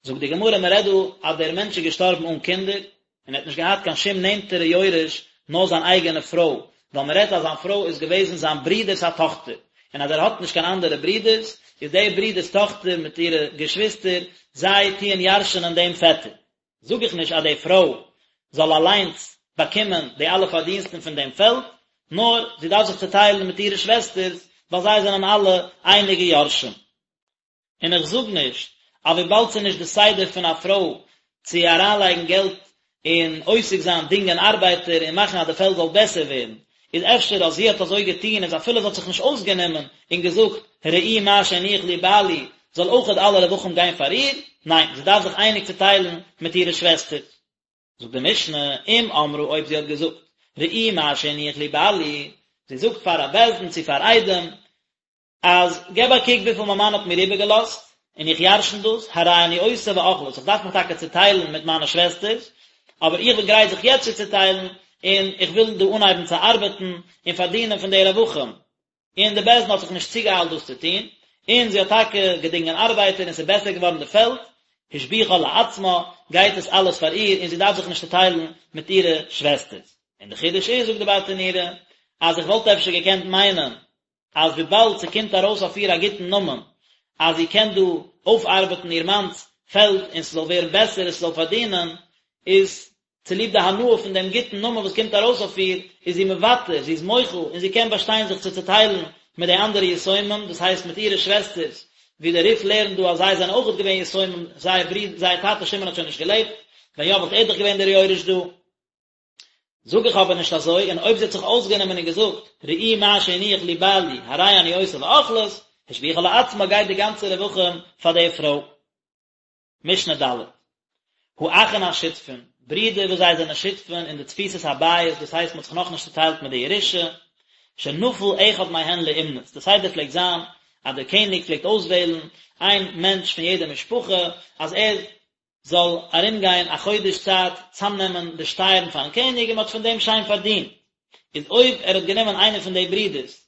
זאגט די גמרא, מען רעדט דא אז דער מענטש איז געשטארבן אן קינדער, און ער האט נישט געהאט קיין שום נענטערע יורש נאר זיין אייגענע פרוי, ווייל מען רעדט אז זיין פרוי איז געוועזן זיין ברודער'ס א טאכטער, און אז ער האט נישט קיין אנדערע ברודערס, איז דער ברודער'ס טאכטער מיט אירע געשוויסטער, זיי טוען ירש'נען דעם פעטער. זאג איך נישט אז די פרוי זאל אליינס באקומען די אלע פארדינסטן פון דעם פעלד, נאר זי דארף זיך צעטיילן מיט אירע שוועסטערס, ווייל זיי זענען אלע אייניגע יורשים. און איך זאג נישט אז וויבאלד ס'איז נישט די סדר פון א פרוי צו אריינלייגן געלט און עוסק זיין דינגען ארבייטער און מאכן אז די פעלד זאל בעסער ווערן, איז אפשר אז זי האט אזוי געטון איז אפילו זי האט זיך נישט אויסגענומען און געזאגט ראו מה שהניח לי בעלי זאל אויכעט אלע רווחים גיין פאר איר, ניין זי דארף זיך אייניג צוטיילן מיט אירע שוועסטער. זאגט די משנה, אם אמרה אויב זי האט געזאגט ראו מה שהניח לי בעלי, זי זאגט פאר א בית דין צו פאר עדים, אז געב א קוק וויפיל מיין מאן האט מיר איבערגעלאזט, און איך ירשן דאס, הרי אני עושה ואוכלת, איך דארף מיך טאקע צעטיילן מיט מיינע שוועסטערס, אבער איך בין גרייט זיך יעצט צו צעטיילן, און איך וויל דא אנהייבן צו ארבעטן און פארדינען פון די רווחים. און די בית דין האט זיך נישט צוגעאיילט דאס צו טון, און זי האט טאקע געדינגען ארבייטער און ס'איז בעסער געווארן די פעלד, השביחה לעצמה, גייט עס אלעס פאר איר און זי דארף זיך נישט צעטיילן מיט אירע שוועסטערס. און די חידוש איז, זאגט די ברטנורא, אז איך וואלט אפשר געקענט מיינען, אז וויבאלד ס'קומט ארויס אויף איר א גוטן נאמען, אז זי קען דא אויפארבעטן איר מאנ'ס פעלד און ס'זאל ווערן בעסער און ס'זאל פארדינען, איז צוליב די הנאה פון דעם גוטן נאמען וואס קומט ארויס אויף איר, איז זי מוותר, זי איז מוחל, און זי קען באשטיין זיך צו צעטיילן מיט די אנדערע יתומים, דאס הייסט מיט אירע שוועסטערס, ווי דער רי"ף לערנט דא אז זיי זענען אויכעט געווען יתומים, זייער ברודער, זייער טאטע שמעון האט שוין נישט געלעבט, ווען יא וואלט ער דאך געווען דער יורש דא. זאג איך אבער נישט אזוי, און אויב זי האט זיך אויסגענומען און געזאגט, ראו מה שהניח לי בעלי, הרי אני עושה ואוכלת, השביחה לעצמה גייט די גאנצע רווחים פאר די פרוי. משנה ד'. האחין השותפין, ברידער וואס זיי זענען שותפין אין די תפיסת הבית, דאס הייסט מען האט זיך נאכנישט צוטיילט מיט די ירושה, שנפל אחד מהן לאומנות, די סדר פלעגט זיין אז דער קעניג פלעגט אויסוועלן איין מענטש פון יעדע משפחה אז ער זאל ארומגיין א חודש צייט צאמנעמען די שטייערן פארן קעניג און מען האט פון דעם שיין פארדינט, איז אויב ער האט גענומען איינער פון די ברידערס,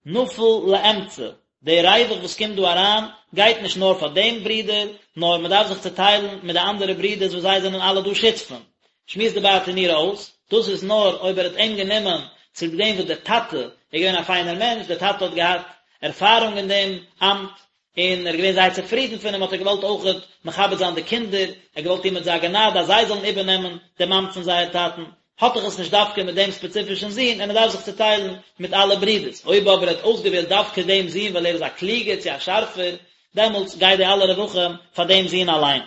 נפל לאמצע, די ריווח וואס קומט דא אריין גייט נישט נאר פאר דעם ברודער, נאר מען דארף זיך צוטיילן מיט די אנדערע ברידערס וואס זיי זענען אלע דא שותפים. שמועסט די ברטנורא אויס, דאס איז נאר אויב ער האט אים גענומען. צוליב דעם וואס דער טאטע איז געווען א פיינער מענטש, דער טאטע האט געהאט ערפארונג אין דעם אמט, און ער איז געווען זייער צופרידן פון אים, האט ער געוואלט אויכעט מכבד זיין די קינדער, ער האט געוואלט טון מיט זיי א גענאד אז זיי זאלן איבערנעמען דעם אמט פון זייער טאטן, האט דאך עס נישט דווקא מיט דעם ספעציפישן זון, און ער דארף זיך צוטיילן מיט אלע ברידערס, אויב אבער ער האט אויסגעוועלט דווקא דעם זון ווייל ער איז א קלוגער צו א שארפער, דעמאלטס גייט די אלע רווחים פאר דעם זון אליין.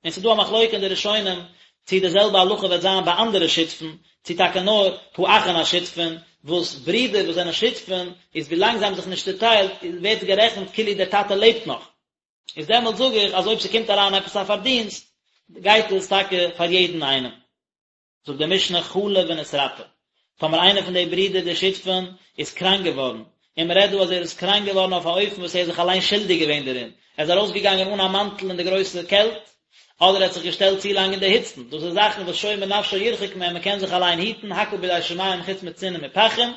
און ס'איז דא א מחלוקה אין די ראשונים צי די זעלבע הלכה וועט זיין ביי אנדערע שותפים, צי טאקע נאר האחין השותפין, וואס ברידער וואס זענען שותפים, איז ווילאנג זיי האבן זיך נישט צוטיילט ווערט עס גערעכנט כאילו דער טאטע לעבט נאך. איז דעמאלט זאג איך אז אויב ס'קומט אריין עפעס א פארדינסט, גייט עס טאקע פאר יעדן איינעם. זאגט די משנה חלה ונתרפא, טאמער איינער פון די ברידער די שותפים איז קראנק געווארן, און מען רעדט דא אז ער איז קראנק געווארן אויף א אופן וואס ער איז זיך אליין שולדיג געווען דערין, ער איז ארויסגעגאנגען אן א מאנטל אין די גרויסע קעלט, אדער ער האט זיך געשטעלט צו לאנג אין די היצן, דאס איז זאכן וואס שומר נפשו ירחק מהם, מען קען זיך אליין היטן, הכל בידי שמים חוץ מצינון ומפחים,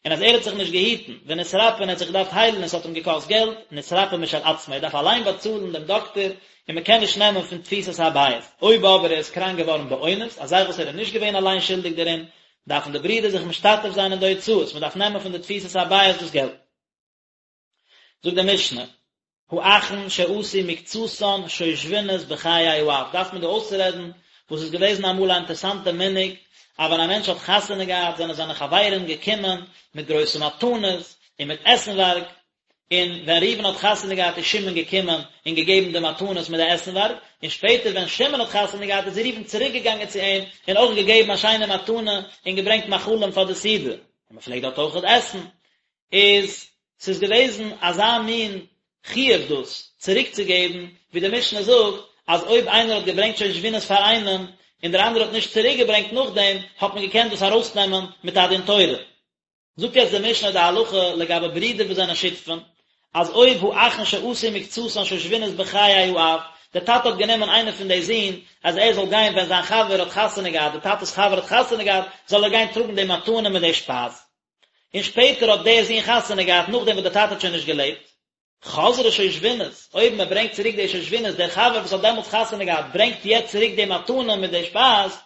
און אז ער האט זיך נישט געהיטן, ונתרפא און ער האט זיך געדארפט היילן און עס האט אים געקאסט געלט, נתרפא משל עצמו, ער דארף אליין באצאלן דעם דאקטער, און מען קען נישט נעמען פון תפיסת הבית. אויב אבער ער איז קראנק געווארן באונס, א זאך וואס ער איז נישט געווען אליין שולדיג דערין, דארפן די ברידער זיך משתתף זיין אין די הוצאות, מען דארף נעמען פון די תפיסת הבית דאס געלט. זאגט די משנה, האחין שעשו מקצתן שושבינות בחיי האב, דארף מען דא אויסרעדן וואס איז געוועזן אמאל א אינטערסאנטע מנהג, אז ווען א מענטש האט חתונה געהאט זענען זיינע חברים געקומען מיט גרויסע מתנות און מיט עסנווארג, און ווען ראובן האט חתונה געהאט איז שמעון געקומען און געגעבן די מתנות מיט די עסנווארג, און שפעטער ווען שמעון האט חתונה געהאט איז ראובן צוריק געגאנגען צו אים און אויך געגעבן א שיינע מתנה און געברענגט מאכלים פאר די סעודה, און מען פלעגט דארט אויכעט עסן. איז ס'איז געוועזן אזא מין חיוב דאס צוריק צו געבן, ווי די משנה זאגט אז אויב איינער האט געברענגט שושבינות פאר איינעם און דער אנדערער האט נישט צוריק געברענגט נאכדעם האט מען געקענט דאס ארויסנעמען מיט א דין תורה. זאגט יעצט די משנה די הלכה לגבי ברידער וואס זענען שותפים, אז אויב האחין שעשו מקצתן שושבינות בחיי האב, דער טאטע האט גענומען איינער פון די זין אז ער זאל גיין ווען זיין חבר האט חתונה געהאט, די טאטע'ס חבר האט חתונה געהאט, זאל ער גיין טראגן די מתנה מיט די שפייז. און שפעטער האט דער זון חתונה געהאט נאכדעם וואס דער טאטע האט שוין נישט געלעבט. חזרה שושבינות, אויב מען ברענגט צוריק די שושבינות, דער חבר וואס האט דעמאלטס חתונה געהאט ברענגט יעצט צוריק די מתנה מיט די שפייז,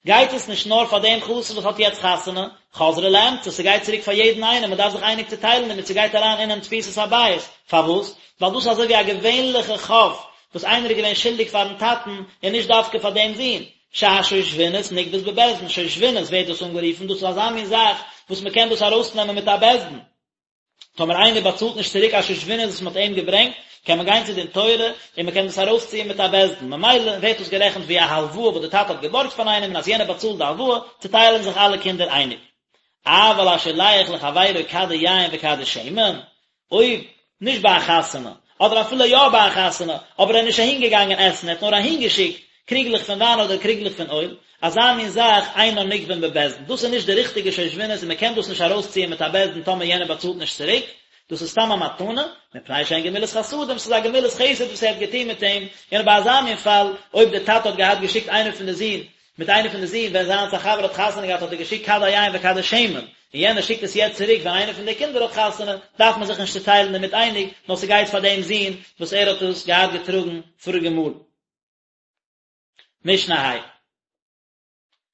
גייט עס נישט נאר פאר דעם חתן וואס האט יעצט חתונה, חזרה לאמצע, ס'גייט צוריק פאר יעדן איינעם, מען דארף זיך אייניג צוטיילן דערמיט, ס'גייט אריין אינעם תפיסת הבית, פארוואס? ווייל דאס איז אזוי ווי א געווענליכע חוב וואס איינער איז געווען שולדיג פארן טאטן און נישט דווקא פאר דעם זון, שהשושבינות נגבית בבית דין, שושבינות ווערט דאס אנגערופן, דאס איז אזא מין זאך וואס מען קען דאס ארויסנעמען מיט א בית דין. טאמער איינער באצאלט נישט צוריק א שושבינות וואס מען האט אים געברענגט, קען מען גיין צו דין תורה און מען קען דאס ארויסציען מיט א בית דין, ממילא ווערט דאס גערעכנט ווי א הלוואה וואס די טאטע האט געבארגט פון איינעם און אז יענער באצאלט די הלוואה, צוטיילן זיך אלע קינדער אייניג. אבל השולח לחבירו כדי יין וכדי שמן, אויב נישט ביי א חתונה, אדער אפילו יא ביי א חתונה, אבער ער איז נישט אהין געגאנגען עסן, ער האט נאר אהין געשיקט קריגלעך פון וויין אדער קריגלעך פון אויל, אזא מין זאך אינן נגבין בבית דין, דאס איז נישט די ריכטיגע שושבינות און מען קען דאס נישט ארויסציען מיט א בית דין טאמער יענער באצאלט נישט צוריק, דאס איז סתם א מתנה, מפני שהן גמילות חסדים, ס'איז א גמילות חסד וואס ער האט געטון מיט אים, און ביי אזא מין פאל, אויב דער טאטע האט געהאט געשיקט איינער פון די זין, מיט איינער פון די זין, ווען זיינס א חבר האט חתונה געהאט האט ער געשיקט כדי יין וכדי שמן, און יענער שיקט עס יעצט צוריק ווען איינער פון די קינדער האט חתונה, דארף מען זיך נישט צוטיילן דערמיט אייניג, נאר ס'גייט פאר דעם זון וואס ער האט עס געהאט געטראגן פאריגע מאל. משנה ה'.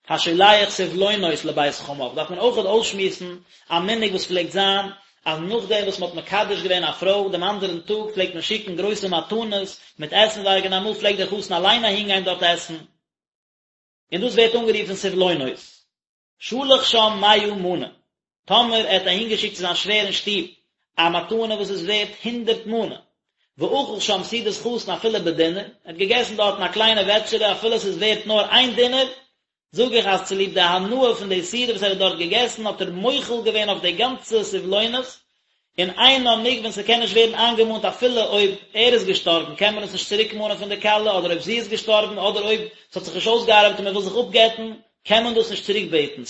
השולח סבלונות לבית חמיו, דארף מען אויכעט אויסשמועסן א מנהג וואס פלעגט זיין, אז נאכדעם וואס מ'האט מקדש געווען א פרוי דעם אנדערן טאג פלעגט מען שיקן גרויסע מתנות מיט עסנווארג און אמאל פלעגט דער חתן אליין אהינגיין דארט עסן, און דאס ווערט אנגערופן סבלונות. שלח שם מאה מנה, טאמער ער האט אהינגעשיקט צו זיין שווער אין שטוב א מתנה וואס איז ווערט הונדערט מנה, ואכל שם סעודת חתן אפילו בדינר, ער האט געגעסן דארטן א קליינע וועטשערע אפילו עס איז ווערט נאר איין דינר, זאג איך אז צוליב די הנאה פון די סעודה וואס ער האט דארט געגעסן האט ער מוחל געווען אויף די גאנצע סבלונות, און אינן נגבין ס'קען נישט ווערן איינגעמאנט אפילו אויב ער איז געשטארבן קען מען עס נישט צוריק מאנען פון די כלה אדער אויב זי איז געשטארבן אדער אויב ס'האט זיך נישט אויסגעארבעט און מ'וויל זיך אפגט'ן קען מען דאס נישט צוריק בעטן.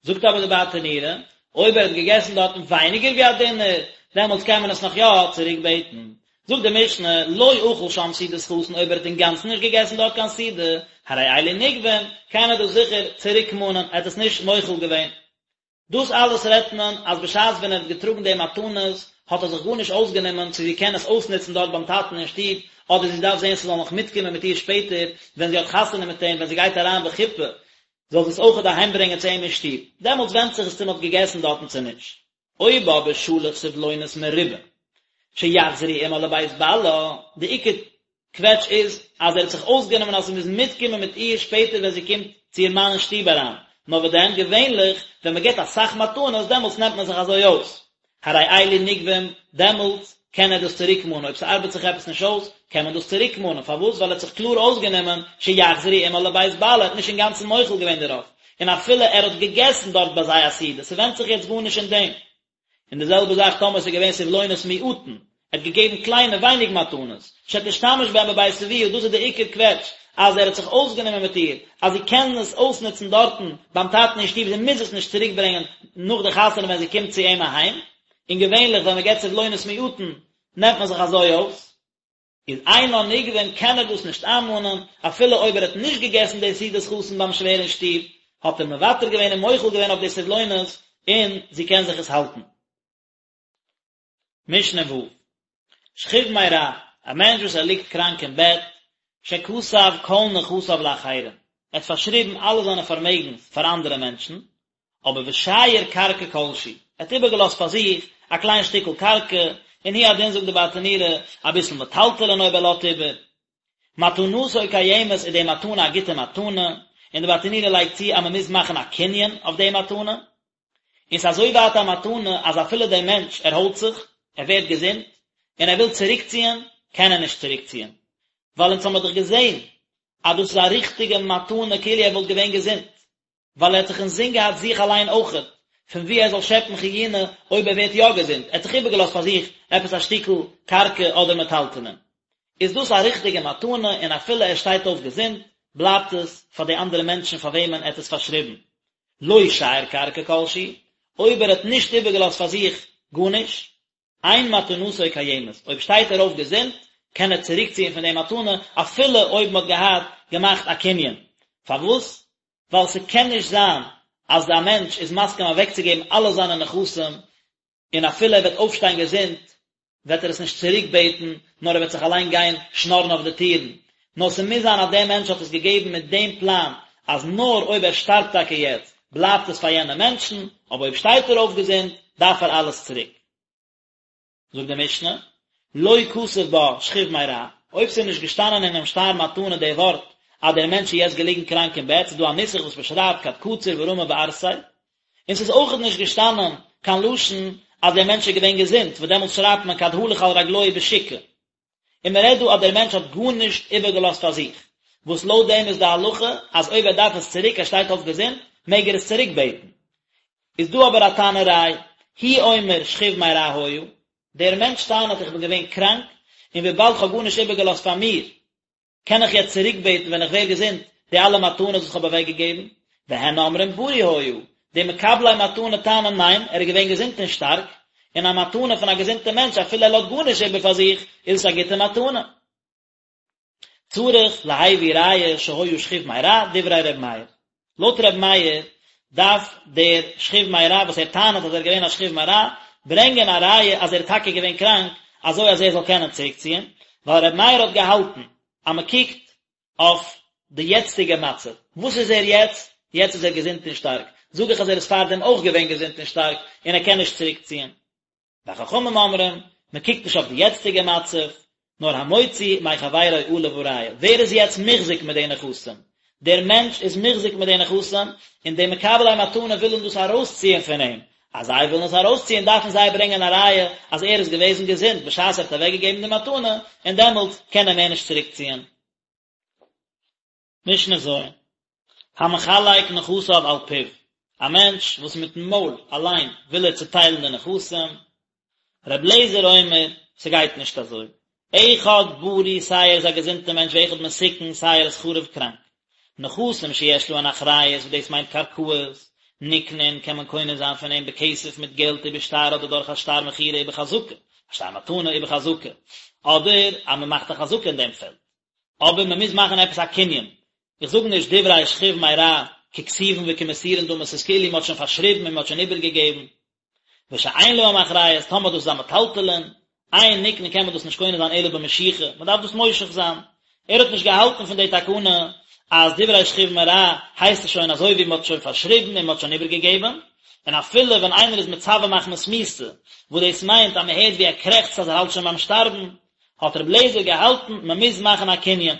זאגט אבער די ברטנורא, אויב ער האט געגעסן דארטן ווייניגער ווי א דינר, דעמאלטס קען מען עס נאך יא צוריק בעטן. זאגט די משנה, לא אכל שם סעודת חתן אויב ער האט אינגאנצן נישט געגעסן דארט קיין סעודה, הרי אלו נגבין, קען ער דאס זיכער צוריק מאנען, ער האט עס נישט מוחל געווען. דאס אלעס רעדט מען אז בשעת ווען ער האט געטראגן די מתנות האט ער זיך גארנישט אויסגענומען צו זי קען עס אויסנוצן דארט ביים טאטן אין שטוב, אדער זי דארף זען ס'זאל נאך מיטקומען מיט איר שפעטער ווען זי האט חתונה מיט אים ווען זי גייט אריין בחופה. זאל זי עס אויכעט אהיימברענגען צו אים אין שטוב, דעמאלטס ווענדט זיך עס צו מען האט געגעסן דארטן צו נישט. אויב אבער שלח סבלונות מרובים שיחזרו עמה לבית בעלה, די עיקר קוועטש איז אז ער האט זיך אויסגענומען אז ס'מוז מיטקומען מיט איר שפעטער ווען זי קומט צו איר מאן אין שטוב אריין, נאר וואס דען, געווענליך ווען מ'געט אסאך מתנות דעמאלטס נעמט מען זיך אזוי אויס, הרי אלו נגבים, דעמאלטס קען ער דאס צוריקמאנען, אויב ס'ארבעט זיך עפעס נישט אויס, קען מען דאס צוריקמאנען, פארוואס? ווייל ער האט זיך קלאר אויסגענומען שיחזרו עמה לבית בעלה, ער האט נישט אינגאנצן מוחל געווען דערויף, און אפילו ער האט געגעסן דארט ביי זיי א סעודה, ס'ווענדט זיך יעצט גארנישט אין דעם. און די זעלבע זאך טאמער ס'איז געווען סבלונות מועטין, ער האט געגעבן קליינע ווייניג מתנות, שתשתמש בהן בבית אביה, דאס איז די עיקר קוועטש, אז ער האט זיך אויסגענומען מיט איר, אז זי קען עס אויסנוצן דארטן ביים טאטן אין שטוב, זי מוז עס נישט צוריק ברענגען נאך די חתונה ווען זי קומט צו אים אהיים, און געווענליך ווען מען געבט סבלונות מועטין נעמט מען זיך אזוי אויס. איז אינן נגבין קען ער דאס נישט איינמאנען, אפילו אויב ער האט נישט געגעסן די סעודת חתן ביים שווער אין שטוב, האט ער מוותר געווען און מוחל געווען אויף די סבלונות, און זי קען זיך עס האלטן. משנה ו', שכיב מרע, א מענטש וואס ער ליגט קראנק אין בעט, שכתב כל נכסיו לאחרים, ער האט פארשריבן אלע זיינע פארמעגנס פאר אנדערע מענטשן, אבער ושייר קרקע כלשהי, ער האט איבערגעלאזט פאר זיך א קליין שטיקל קרקע, און הוא הדין זאגט די ברטנורא, אביסל מטלטלין אויב ער לאזט איבער. מתנתו קיימת איז די מתנה א גוטע מתנה, און די ברטנורא לייגט צו אז מען מוז מאכן א קנין אויף די מתנה, און ס'איז אזוי ווייט א מתנה אז אפילו דער מענטש ערהוילט זיך, ער ווערט געזונט, און ער וויל צוריקציען, קען ער נישט צוריקציען, ווייל אונז האמיר דאך געזען אז דאס איז א ריכטיגע מתנה כאילו ער וואלט געווען געזונט. ווייל ער האט זיך אינזין געהאט זיך אליין אויכעט, פון וואו ער זאל שעפן חיונה אויב ער ווערט יא געזונט, ער האט זיך איבערגעלאזט פאר זיך עפעס א שטיקל קרקע אדער מטלטלין. איז דאס א ריכטיגע מתנה און אפילו ער שטייט אויף געזונט, בלייבט עס פאר די אנדערע מענטשן פאר וועמען ער האט עס פארשריבן. לא שייר קרקע כלשהי, אויב ער האט נישט איבערגעלאזט פאר זיך גארנישט, אין מתנתו קיימת, אויב שטייט ער אויף געזונט, קען ער צוריקציען פון די מתנה אפילו אויב מען האט געהאט געמאכט א קנין. פארוואס? ווייל ס'קען נישט זיין אז א מענטש איז מסכים אוועקצוגעבן אלע זיינע נכסים, און אפילו ער וועט אויפשטיין געזונט, וועט ער עס נישט צוריקבעטן, נאר ער וועט זיך אליין גיין שנארן אויף די טירן. נאר ס'מוז זיין אז דער מענטש האט עס געגעבן מיט דעם פלאן, אז נאר אויב ער שטארבט טאקע יעצט, בלייבט עס פאר יענע מענטשן, אבער אויב שטייט ער אויף געזונט, דארף ער אלעס צוריק. זאגט די משנה, לא כתב בה שכיב מרע, אויב ס'איז נישט געשטאנען אינעם שטר מתנה די ווארט אז דער מענטש איז יעצט געליגן קראנק אין בעט, ס'איז דא א נוסח וואס מ'שרייבט כד קציר ורמי בערסיה, און ס'איז אויכעט נישט געשטאנען קיין לשון אז דער מענטש איז געווען געזונט, וואס דעמאלטס שרייבט מען כד הלך על רגלוהי בשוקא. און מען רעדט דא אז דער מענטש האט גארנישט איבערגעלאזט פאר זיך, וואס לויט דעם איז די הלכה אז אויב ער דארף עס צוריק, ער שטייט אויף געזונט, מעג ער עס צוריק בעטן. איז דא אבער א טענה'ריי, הוא אומר שכיב מרע היה, דער מענטש טענה'ט איך בין געווען קראנק, און וויבאלד כ'האב גארנישט איבערגעלאזט פאר מיר, קען איך יעצט צוריקבעטן ווען איך ווער געזונט די אלע מתנות וואס כ'האב אוועקגעגעבן? והן אומרים בריא היה, די מקבלי מתנה טענה'ן ניין, ער איז געווען געזונט און שטארק, און א מתנה פון א געזונטע מענטש אפילו ער לאזט גארנישט איבער פאר זיך, איז עס א גוטע מתנה. צריך להביא ראיה שהיה שכיב מרע, דברי ר' מאיר. לויט ר' מאיר דארף דער שכיב מרע וואס ער טענה'ט אז ער איז געווען א שכיב מרע, ברענגען א ראיה אז ער איז טאקע געווען קראנק, אזוי אז ער זאל קענען צוריקציען, ווייל ר' מאיר האט געהאלטן אז מען קוקט אויף די יעצטיגע מצב, וואס איז ער יעצט? יעצט איז ער געזונט און שטארק, זאג איך אז ער איז פארדעם אויך געווען געזונט און שטארק און ער קען נישט צוריקציען. וחכמים אומרים, מען קוקט נישט אויף די יעצטיגע מצב, נאר המוציא מחבירו עליו הראיה, ווער איז יעצט מוחזק מיט די נכסים? דער מענטש איז מוחזק מיט די נכסים, און די מקבלי מתנה ווילן דאס ארויסציען פון אים, אז זיי ווילן עס ארויסציען דארפן זיי ברענגען א ראיה אז ער איז געוועזן געזונט בשעת ער האט אוועקגעגעבן די מתנה, און דעמאלט קען ער מער נישט צוריקציען. משנה ז', המחלק נכסיו על פיו, א מענטש וואס מיטן מויל אליין וויל ער צוטיילן די נכסים, ר' אליעזר אומר, ס'גייט נישט אזוי, אחד בריא סיי ער איז א געזונטע מענטש ואחד מתוקן סיי ער איז חרוב קראנק, נכסים שיש להן אחריות וואס דאס מיינט קרקעות, נקנין קען מען קונה זיין פון אים בכסף מיט געלט ובשטר אדער דורך א שטר מכירה ובחזקה, א שטר מתנה ובחזקה, אדער אז מען מאכט א חזקה אין דעם פעלד. אבער מען מוז מאכן עפעס א קנין, איך זאג נישט דברי שכיב מרע ככתובין וכמסורין דמי, ס'איז כאילו מען האט שוין פארשריבן און מען האט שוין איבערגעגעבן, ושאין להם אחריות, טאמער דאס איז א מטלטלין, אין נקנין קען מען דאס נישט קונה זיין אלא במשיכה, מען דארף דאס מושך זיין, ער האט נישט געהאלטן פון די תקנה. אז דברי שכיב מרע הייסט עס שוין אזוי ווי מען האט שוין פארשריבן און מען האט שוין איבערגעגעבן, און אפילו ווען איינער איז מצווה מחמת מיתה, וואס דאס מיינט אז מען הערט ווי ער קרעכצט אז ער האלט שוין ביים שטארבן, האט רבי אליעזר געהאלטן מען מוז מאכן א קנין.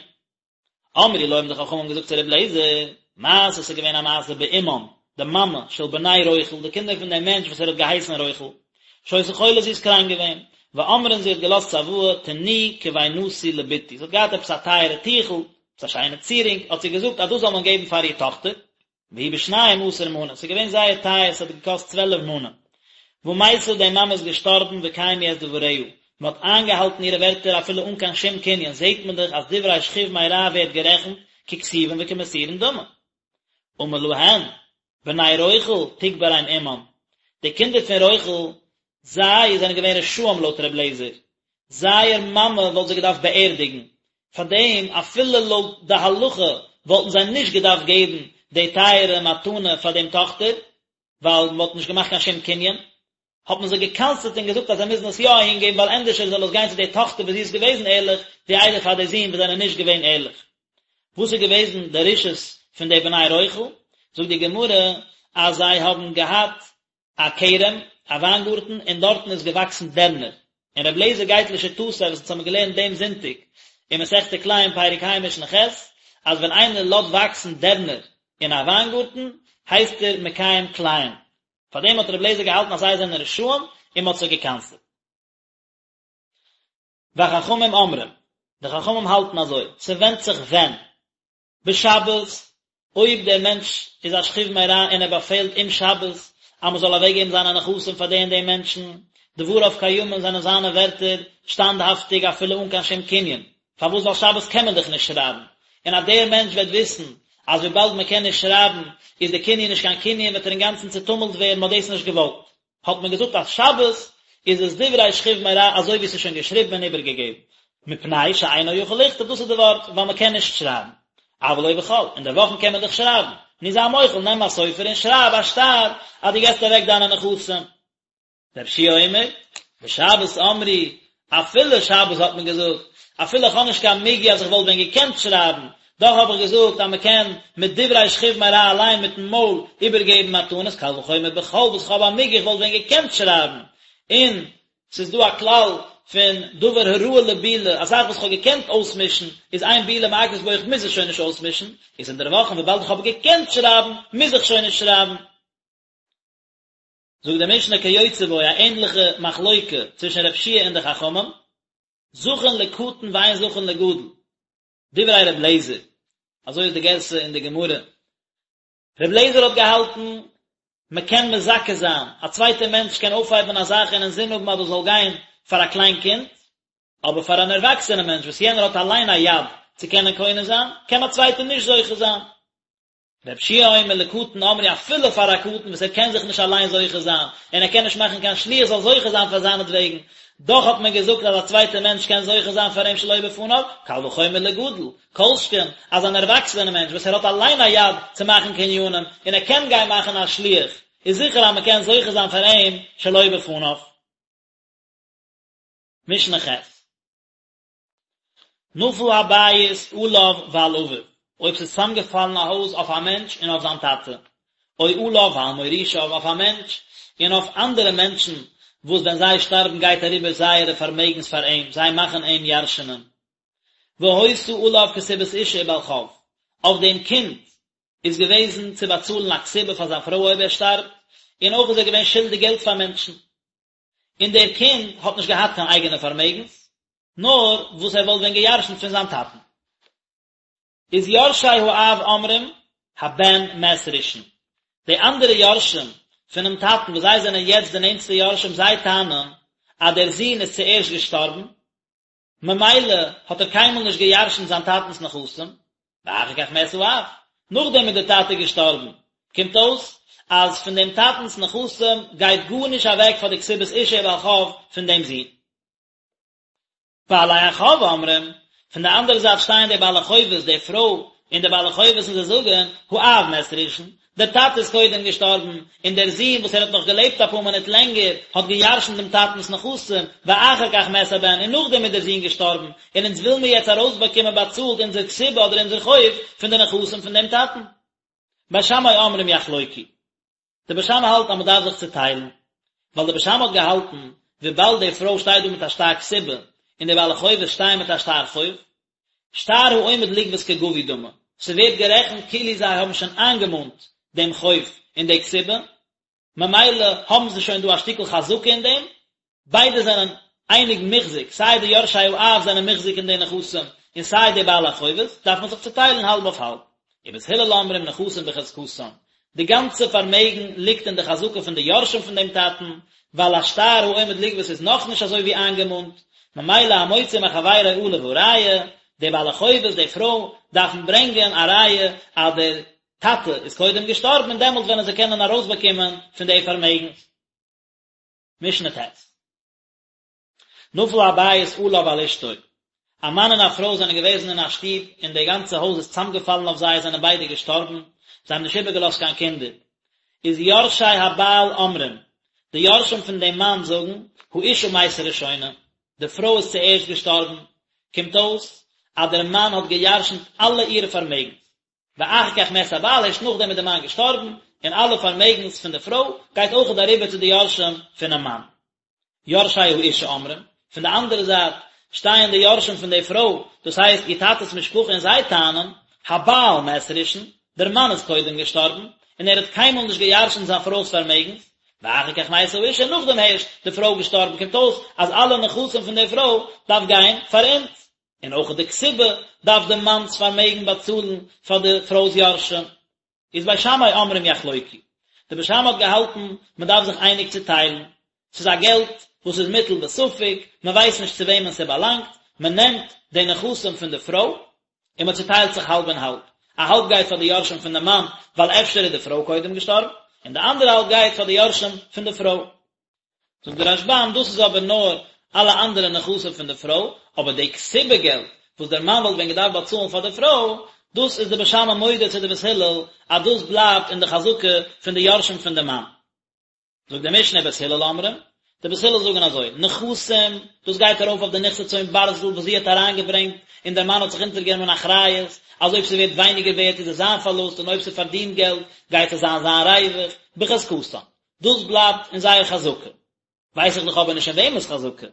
אמרו לו האבן די חכמים געזאגט צו רבי אליעזר, מעשה ס'איז געווען א מעשה באמם, די מאמע, של בני רוכל, די קינדער פון דעם מענטש וואס ער האט געהייסן רוכל, שהיתה חולה זי איז קראנק געווען, ואמרה און זי האט געלאזט צוואה, תנו כבינתי לבתי, זי האט געהאט עפעס א טייערע טיכל, עפעס א שיינע צירונג, האט זי געזאגט אז דאס זאל מען געבן פאר איר טאכטער, והיא בשנים עשר מנה, ס'איז געווען זייער טייער, ס'האט געקאסט צוועלף מנה. ומתה די מאמע איז געשטארבן וקיימו את דבריה, מען האט איינגעהאלטן אירע ווערטער אפילו אן קיין שום קנין, זעט מען דאך אז דברי שכיב מרע ווערט גערעכנט ככתובין וכמסורין דמי. אמר להן, בני רוכל תקברם אמם, די קינדער פון רוכל, זיי זענען געווען רשעים לויט ר' אליעזר, זייער מאמע וואלט זיי געדארפט באערדיגן, פארדעם אפילו לויט די הלכה וואלטן זיי נישט געדארפט געבן די טייערע מתנה פאר דעם טאכטער, ווייל מען וואלט נישט געמאכט קיין שום קנין, האט מען זיי גע'קנס'עט און געזאגט אז זיי מוזן עס יא אהין געבן ווייל ענדערשער זאל עס גיין צו די טאכטער וואס זי איז געוועזן ערליך, ווי איידער פאר די זין וואס זענען נישט געווען ערליך. וואס איז געוועזן די רשעות פון די בני רוכל? זאגט די גמרא אז זיי האבן געהאט א כרם, א וויינגארטן, און דארטן איז געוואקסן דערנער. און רבי אליעזר גייט לשיטתו וואס אונז האבן געלערנט דעם זונטאג אין מסכת כלאים פרק ה' משנה ח', אז ווען איינער לאזט וואקסן דערנער אין א וויינגארטן, הייסט ער מקיים כלאים. פארדעם האט רבי אליעזר געהאלטן אז זיי זענען רשעים און מען האט זיי גע'קנס'עט. וחכמים אומרים, די חכמים האלטן אזוי, ס'ווענדט זיך ווען. בשבת, אויב דער מענטש איז א שכיב מרע און ער באפעלט אום שבת אז מען זאל אוועקגעבן זיינע נכסים פאר די און די מענטשן, דבריו קיימין זענען זיינע ווערטער שטאנדהאפטיג אפילו אן קיין שום קנין, פארוואס ווייל שבת קען מען דאך נישט שרייבן, און אז דער מענטש וועט וויסן אז וויבאלד מען קען נישט שרייבן איז די קנין נישט קיין קנין וועט ער אינגאנצן צוטומלט ווערן, מען האט דאס נישט געוואלט. האט מען געזאגט אז שבת איז עס דברי שכיב מרע אזוי ווי עס איז שוין געשריבן און איבערגעגעבן, מפני שאינו יכול לכתוב דאס איז די ווארט ווייל מען קען נישט שרייבן, אבל לא בחול, אין די וואכן קען מען דאך שרייבן, נו זיי מוחל נעם א סופר און שרייב א שטר אז דו געסט אוועק דיינע נכסים. רבי יהושע אומר, בשבת אמרו, אפילו שבת האט מען געזאגט, אפילו איך האב נישט קיין מיגו אז איך וואלט ווען געקענט שרייבן, דאך האב איך געזאגט אז מען קען מיט דברי שכיב מרע אליין מיטן מויל איבערגעבן מתנות, קל וחומר בחול וואס איך האב א מיגו איך וואלט ווען געקענט שרייבן, און ס'איז דא א כלל פון דבר הראוי לבילה, א זאך וואס איך האב געקענט אויסמישן, איז אין בילה מעכבת בו איך מוז עס שוין נישט אויסמישן, איז אינדערוואכן וויבאלד איך האב געקענט שרייבן, מוז איך שוין נישט שרייבן. זאגט די משנה כיוצא בו א ענדליכע מחלוקה צווישן רב שיע און די חכמים, זכין לקטן ואין זכין לגדול, דברי רב לעזער, אזוי איז די גירסא אין די גמרא, רב לעזער האט געהאלטן מען קען מזכה זיין, א צווייטער מענטש קען אויפהייבן א זאך און אינזין האבן אז דאס זאל גיין פאר א קליין קינד, אבער פאר אן ערוואקסענע מענטש וואס יענער האט אליין א יד צו קענען קונה זיין, קען א צווייטער נישט זוכה זיין. רב שיע אומר לקטן אמרו אפילו פאר א קטן וואס ער קען זיך נישט אליין זוכה זיין און ער קען נישט מאכן קיין שליח זאל זוכה זיין פאר זיינעטוועגן, דאך האט מען געזאגט אז א צווייטער מענטש קען זוכה זיין פאר אים שלא בפניו, קל וחומר לגדול, כל שכן אז אן ערוואקסענער מענטש וואס ער האט אליין א יד צו מאכן קנינים און ער קען גיין מאכן א שליח, איז זיכער אז מען קען זוכה זיין פאר אים שלא בפניו. משנה ח'. נפל הבית עליו ועל אביו, אויב ס'איז צוזאמגעפאלן א הויז אויף א מענטש און אויף זיין טאטע, או עליו ועל מורישיו, אויף א מענטש און אויף אנדערע מענטשן, וואס ווען זיי שטארבן גייט אריבער זייערע פארמעגנס פאר אים, זיי מאכן אים ירש'נען. והיתה עליו כתובת אשה ובעל חוב, אויף דעם קינד איז געוועזן צו באצאלן א כתובה פאר זיין פרוי אויב ער שטארבט, און אויך איז ער געווען שולדיג געלט פאר מענטשן. און דער קינד האט נישט געהאט קיין אייגענע פארמעגנס, נאר וואס ער וואלט ווען גע'ירש'נט פון זיין טאטן. איז יורשי האב אומרים, הבן מת ראשון. די אנדערע יורשים פונעם טאטן וואס זיי זענען יעצט די נענטסטע יורשים זיי טענה'ן אז דער זון איז צוערשט געשטארבן, ממילא האט ער קיינמאל נישט גע'ירש'נט זיין טאטנ'ס נכסים, ואחר כך מת האב, נאכדעם איז דער טאטע געשטארבן, קומט אויס אז פון דעם טאטנ'ס נכסים גייט גארנישט אוועק פאר די כתובת אשה ובעל חוב פון דעם זון. בעלי החוב אומרים, פון די אנדערע זייט שטייען די בעלי חובות, די פרוי. און די בעלי חובות און זיי זאגן, האב מת ראשון, דער טאטע איז קודם געשטארבן, און דער זון וואס ער האט נאך געלעבט אפאר מינוט לענגער, האט געירשנט דעם טאטנ'ס נכסים, ואחר כך מת הבן, און נאכדעם איז דער זון געשטארבן, און אונז וויל מיר יעצט ארויסבאקומען באצאלט אונזער כתובה אדער אונזער חוב פון די נכסים פון דעם טאטן. בית שמאי אומרים יחלוקו. די בית שמאי האלט אז מען דארף זיך צוטיילן, ווייל די בית שמאי האט געהאלטן, וויבאלד די פרוי שטייט דא מיט א שטר כתובה, און די בעלי חובות שטייען מיט א שטר חוב, שטר העומד לגבות כגבוי דמי, ס'ווערט גערעכנט כאילו זיי האבן שוין איינגעמאנט דעם חוב און די כתובה, ממילא האבן זיי שוין דא א שטיקל חזקה אין דעם, ביידע זענען אייניג מוחזק, סיי די יורשי האב זענען מוחזק אין די נכסים, און סיי די בעלי החובות, דארף מען זיך צוטיילן האלב אויף האלב. ובית הלל אומרים נכסים בחזקתן, די גאנצע פארמעגן ליגט אין די חזקה פון די יורשים פון דעם טאטן, ווייל א שטר העומד לגבות איז נאכנישט אזוי ווי איינגעמאנט, ממילא המוציא מחבירו עליו הראיה, די בעלי חובות, די פרוי, דארפן ברענגען א ראיה אז דער טאטע איז קודם געשטארבן און דעמאלט וועלן זיי קענען ארויסבאקומען פון די פארמעגנס. משנה ט'. נפל הבית עליו ועל אשתו, א מאן און א פרוי זענען געוועזן אין א שטוב און די גאנצע הויז איז צוזאמגעפאלן אויף זיי, זענען ביידע געשטארבן, זיי האבן נישט איבערגעלאזט קיין קינדער. איז יורשי הבעל אומרים, די יורשים פון דעם מאן זאגן, האשה מתה ראשונה, די פרוי איז צוערשט געשטארבן, קומט אויס אז דער מאן האט געירשנט אלע אירע פארמעגנס. ואחר כך מת הבעל, הערשט נאכדעם איז דער מאן געשטארבן, און אלע פארמעגנס פון די פרוי גייט אויכעט אריבער צו די יורשים פונעם מאן. יורשי האשה אומרים, פון די אנדערע זייט שטייען די יורשים פון די פרוי, דאס הייסט איר טאטע'ס משפחה און זיי טענה'ן, הבעל מת ראשון, דער מאן איז קודם געשטארבן, און ער האט קיינמאל נישט געירשנט זיין פרוי'ס פארמעגנס, ואחר כך מתה האשה, נאכדעם הערשט די פרוי געשטארבן, קומט אויס אז אלע נכסים פון די פרוי דארף גיין פאר אונז. און אויך די כתובה דארף די מאנ'ס פארמעגן באצאלן פאר די פרוי'ס יורשים. איז בית שמאי אומרים יחלוקו. די בית שמאי האט געהאלטן מען דארף זיך אייניג צוטיילן. ס'איז א געלט וואס איז מוטל בספק, מען ווייסט נישט צו וועמען ס'באלאנגט, מען נעמט די נכסים פון די פרוי און מען צוטיילט זיך האלב און האלב. א האלב גייט פאר די יורשים פון די מאן ווייל אפשר איז די פרוי קודם געשטארבן, און די אנדערע האלב גייט פאר די יורשים פון די פרוי. זאגט דער רשב"ם, דאס איז אבער נאר אלע אנדערע נכסים פון די פרוי, אבער די כתובה געלט וואס דער מאן וואלט ווען געדארפט באצאלן פאר די פרוי, דאס איז די בית שמאי מודה צו די בית הלל אז דאס בלייבט אין די חזקה פון די יורשים פון די מאן. זאגט די משנה בית הלל אומרים, די בית הלל זאגן אזוי, נכסים, דאס גייט ארויף אויף די נכסי צאן ברזל וואס זי האט אריינגעברענגט און דער מאן האט זיך אונטערגענומען אחריות אז אויב ס'ווערט ווייניגער ווערט איז עס זיין פארלוסט און אויב ס'פארדינט געלט גייט עס זיין זיין ריווח, בחזקתן. דאס בלייבט אין זייער חזקה. ווייס איך דאך אבער נישט אין וועמענס חזקה.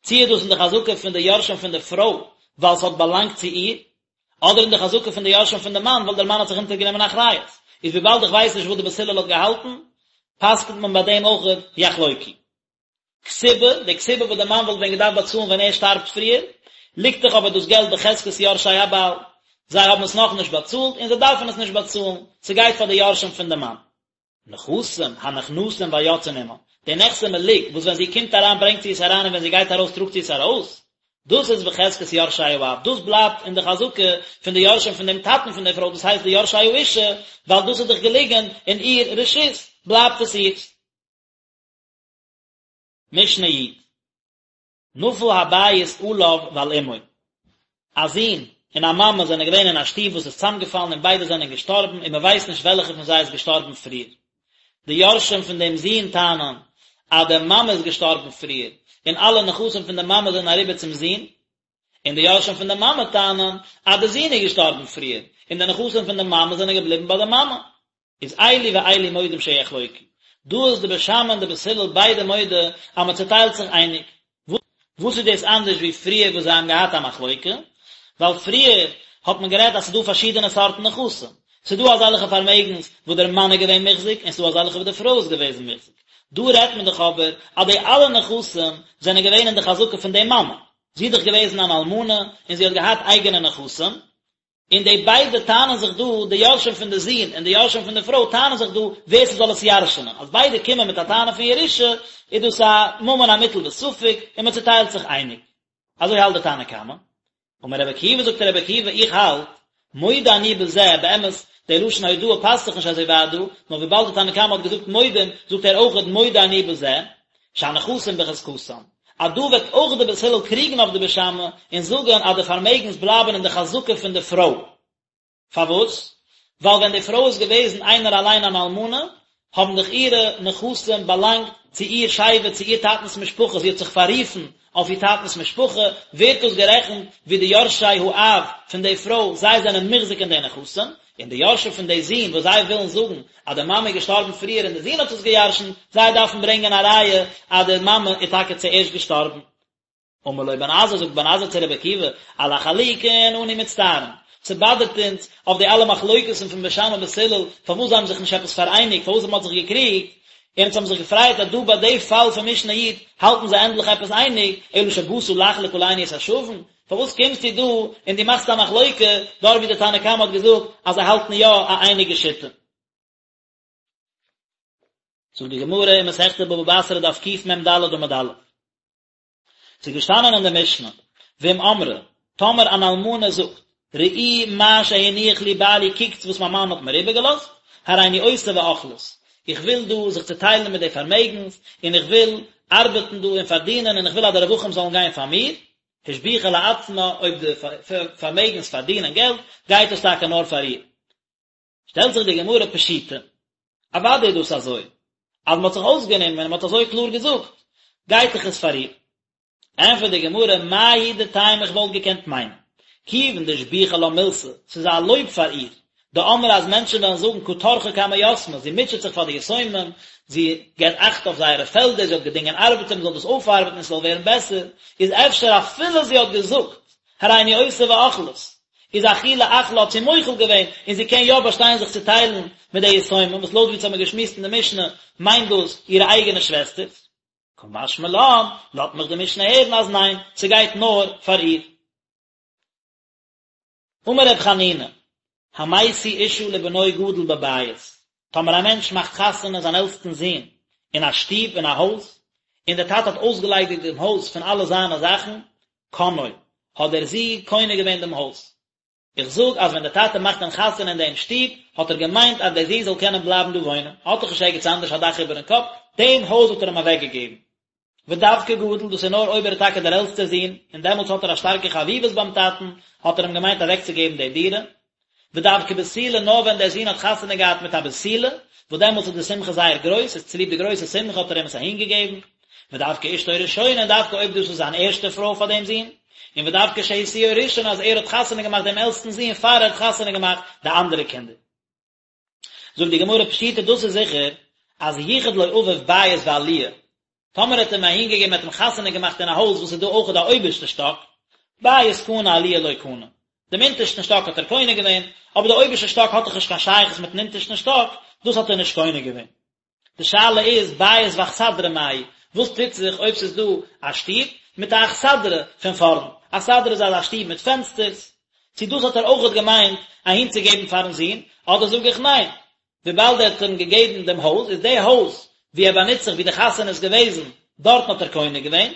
צי איז דאס אין די חזקה פון די יורשים פון די פרוי ווייל ס'האט באלאנגט צו איר, אדער אין די חזקה פון די יורשים פון די מאן ווייל דער מאן האט זיך אונטערגענומען אחריות. איז וויבאלד איך ווייס נישט וואס די בית הלל האט געהאלטן, פסק'נט מען ביי דעם אויך יחלוקו. כתובה, די כתובה וואס די מאן וואלט ווען געדארפט באצאלן ווען ער שטארבט פריער, ליגט דאך אבער דאס געלט בחזקת יורשי הבעל. זיי האבן עס נאכנישט באצאלט און זיי דארפן עס נישט באצאלן, ס'גייט פאר די יורשים פון די מאן. נכסים הנכנסים והיוצאין עמה, די נכסי מלוג וואס ווען זי קומט אריין ברענגט זי עס אריין און ווען זי גייט ארויס טראגט זי עס ארויס, דאס איז בחזקת יורשי האב, דאס בלייבט אין די חזקה פון די יורשים פון דעם טאטן פון דער פרוי, דאס הייסט די יורשי האישה, ווייל דאס איז דאך געליגן אין איר רשות, בלייבט עס אירס. משנה י. נפל הבית עליו ועל אמו, א זון און א מאמע זענען געווען אין א שטוב וואס איז צוזאמגעפאלן און ביידע זענען געשטארבן און מען ווייסט נישט וועלכע פון זיי איז געשטארבן פריער. די יורשים פון דעם זון טענה'ן אז די מאמע איז געשטארבן פריער און אלע נכסים פון די מאמע זענען אריבער צום זון, און די יורשים פון די מאמע טענה'ן אז די זון איז געשטארבן פריער און די נכסים פון די מאמע זענען געבליבן ביי די מאמע. איז אלו ואלו מודים שיחלוקו. דא איז די בית שמאי און די בית הלל ביידע מודה אז מען צוטיילט זיך אייניג. וואס איז דאס אנדערש ווי פריער וואס זיי האבן געהאט א מחלוקה? ווייל פריער האט מען גערעדט אז ס'איז דא פארשידענע סארטן נכסים. ס'איז דא אזעלכע פארמעגנס וואס דער מאן איז געווען מוחזק און ס'איז דא אזעלכע וואס די פרוי איז געוועזן מוחזק. דא רעדט מען דאך אבער אז די אלע נכסים זענען געווען אין די חזקה פון די מאמע. זי איז דאך געוועזן אן אלמנה און זי האט געהאט אייגענע נכסים, און די ביידע טענה'ן זיך דא, די יורשים פון די זון און די יורשים פון די פרוי טענה'ן זיך דא ווער ס'זאל עס ירש'נען, אז ביידע קומען מיט א טענה פון ירושה, איז דאס א ממון המוטל בספק, און מען צוטיילט זיך אייניג. אזוי האלט די תנא קמא. אמר רבי עקיבא זאגט רבי עקיבא איך האלט, מודה אני בזה, באמת, די לשון הודאה פאסט זיך נישט אזוי ווייט דא, נאר וויבאלד די תנא קמא האט געזאגט מודים, זאגט ער אויכעט מודה אני בזה, שהנכסים בחזקתם, אז דא וועט אויך די בית הלל קריגן אויף די בית שמאי און זאגן אז די פארמעגנס בלייבן אין די חזקה פון די פרוי. פארוואס? ווייל ווען די פרוי איז געוועזן איינער אליין אן אלמנה, האבן דאך אירע נכסים באלאנגט צו איר שבט, צו איר טאטנ'ס משפחה, זי האט זיך פאררופן אויף איר טאטנ'ס משפחה, ווערט דאס גערעכנט ווי די יורשי האב פון די פרוי, זיי זענען מוחזק אין די נכסים, און די יורשים פון די זון וואס זיי ווילן זאגן אז די מאמע איז געשטארבן פריער און די זון האט עס געירשנט, זיי דארפן ברענגען א ראיה אז די מאמע איז טאקע צוערשט געשטארבן. אמר לו בן עזאי, זאגט בן עזאי צו רבי עקיבא, על החלוקין אנו מצטערין, ס'באדערט אונז אויף די אלע מחלוקת'ן פון בית שמאי בית הלל, פארוואס זיי האבן זיך נישט עפעס פאראייניגט, פארוואס מ'האט זיך געקריגט, און אונז האבן זיך געפרייט אז דא ביי די פאל פון משנה י' האלטן זיי ענדליך עפעס אייניג, אלא שבאת לחלוק עלינו את השווין, פארוואס קומסטו דא און דו מאכסט א מחלוקה דארט ווי די תנא קמא האט געזאגט אז זיי האלטן יא א אייניגע שיטה? זאגט די גמרא אין מסכת בבא בתרא דף קמ"ד עמוד א', ס'איז געשטאנען אין די משנה, ואם אמרה, טאמער אן אלמנה זאגט, ראו מה שהניח לי בעלי קוקטס וואס מיין מאן האט מיר איבערגעלאזט, הריני עושה ואוכלת, איך וויל דא זיך צוטיילן מיט די פארמעגנס, און איך וויל ארבעטן דא און פארדינען און איך וויל אז די רווחים זאלן גיין פאר מיר, השביחה לעצמה, אויב די פארמעגנס פארדינען געלט, גייט עס טאקע נאר פאר איר. שטעלט זיך די גמרא פשיטא, אוודאי איז דאס אזוי, אז מען האט זיך אויסגענומען און מען האט אזוי קלאר געזאגט, גייט דאך עס פאר איר. ענטפערט די גמרא, מהו דתימא איך וואלט געקענט מיינען, כיוון דשביחא לה מילתא, ס'איז א לויב פאר איר, דאמרי אז מענטשן וועלן זאגן קא טרחא קמי יתמי, זי מוטשעט זיך פאר די יתומים, זי געבט אכט אויף זייערע פעלדער, זי האט געדינגען ארבעטער מען זאל דאס אויפארבעטן און ס'זאל ווערן בעסער, איז אפשר אפילו זי האט געזאגט, הריני עושה ואוכלת, איז אחולי אחלה האט זי מוחל געווען און זי קען יא באשטיין זיך צו טיילן מיט די יתומים, וואס לויט ווי אונז האמיר געשמועסט אין די משנה מיינט דאס אירע אייגענע שוועסטערס. קא משמע לן, לאזט מיך די משנה הערן אז ניין, ס'גייט נאר פאר איר. אמר ר' חנינא, המשיא אשה לבנו גדול בבית, טאמער א מענטש מאכט חתונה זיין עלטסטן זון אין א שטוב, אין א הויז, און דער טאטע האט אויסגעליידיגט דעם הויז פון אלע זיינע זאכן, קנאו, האט דער זון קונה געווען דעם הויז. איך זאג אז ווען דער טאטע מאכט אים חתונה אין דעם שטוב, האט ער געמיינט אז דער זון זאל קענען בלייבן דא וואוינען, האט דאך נישט ערגעץ אנדערש א דאך איבערן קאפ, דעם הויז האט ער אים אוועקגעגעבן. ודווקא גדול, דאס איז נאר אויב ער איז טאקע דער עלטסטער זון, און דעמאלטס האט ער א שטארקע חביבות ביים טאטן, האט ער אים געמיינט אוועקצוגעבן די דירה. ודווקא בתולה, נאר ווען דער זון האט חתונה געהאט מיט א בתולה, וואס דעמאלטס איז די שמחה זייער גרויס, איז צוליב די גרויסע שמחה האט ער אים עס אהינגעגעבן. ודווקא אשתו ראשונה, און דווקא אויב דאס איז זיין ערשטע פרוי פאר דעם זון, און ודווקא שהשיאו ראשון אז ער האט חתונה געמאכט דעם עלטסטן זון פאר ער האט חתונה געמאכט די אנדערע קינדער. זאגט די גמרא פשיטא דאס איז זיכער אז ייחד לו אביו בית ועליה, טאמער האט ער אים אהינגעגעבן ער האט אים חתונה געמאכט אין א הויז וואס איז דא אויכעט א אויבערשטע שטאק, בית קנה עליה לא קנה, דעם אונטערשטן שטאק האט ער קונה געווען, אבער די אויבערשטע שטאק האט דאך נישט קיין שייכות מיטן אונטערשטן שטאק, דאס האט ער נישט קונה געווען. די שאלה איז בית ואכסדרה מאי, וואס טוט זיך אויב ס'איז דא א שטוב מיט א אכסדרה פון פארנט, אכסדרה איז אזא שטוב מיט פענסטערס, צו דאס האט ער אויכעט געמיינט אהינצוגעבן פארן זון, אדער זאג איך ניין, וויבאלד ער האט אים געגעבן דעם הויז, איז די הויז וואו ער באנוצט זיך וואו די חתונה איז געוועזן, דארטן האט ער קונה געווען,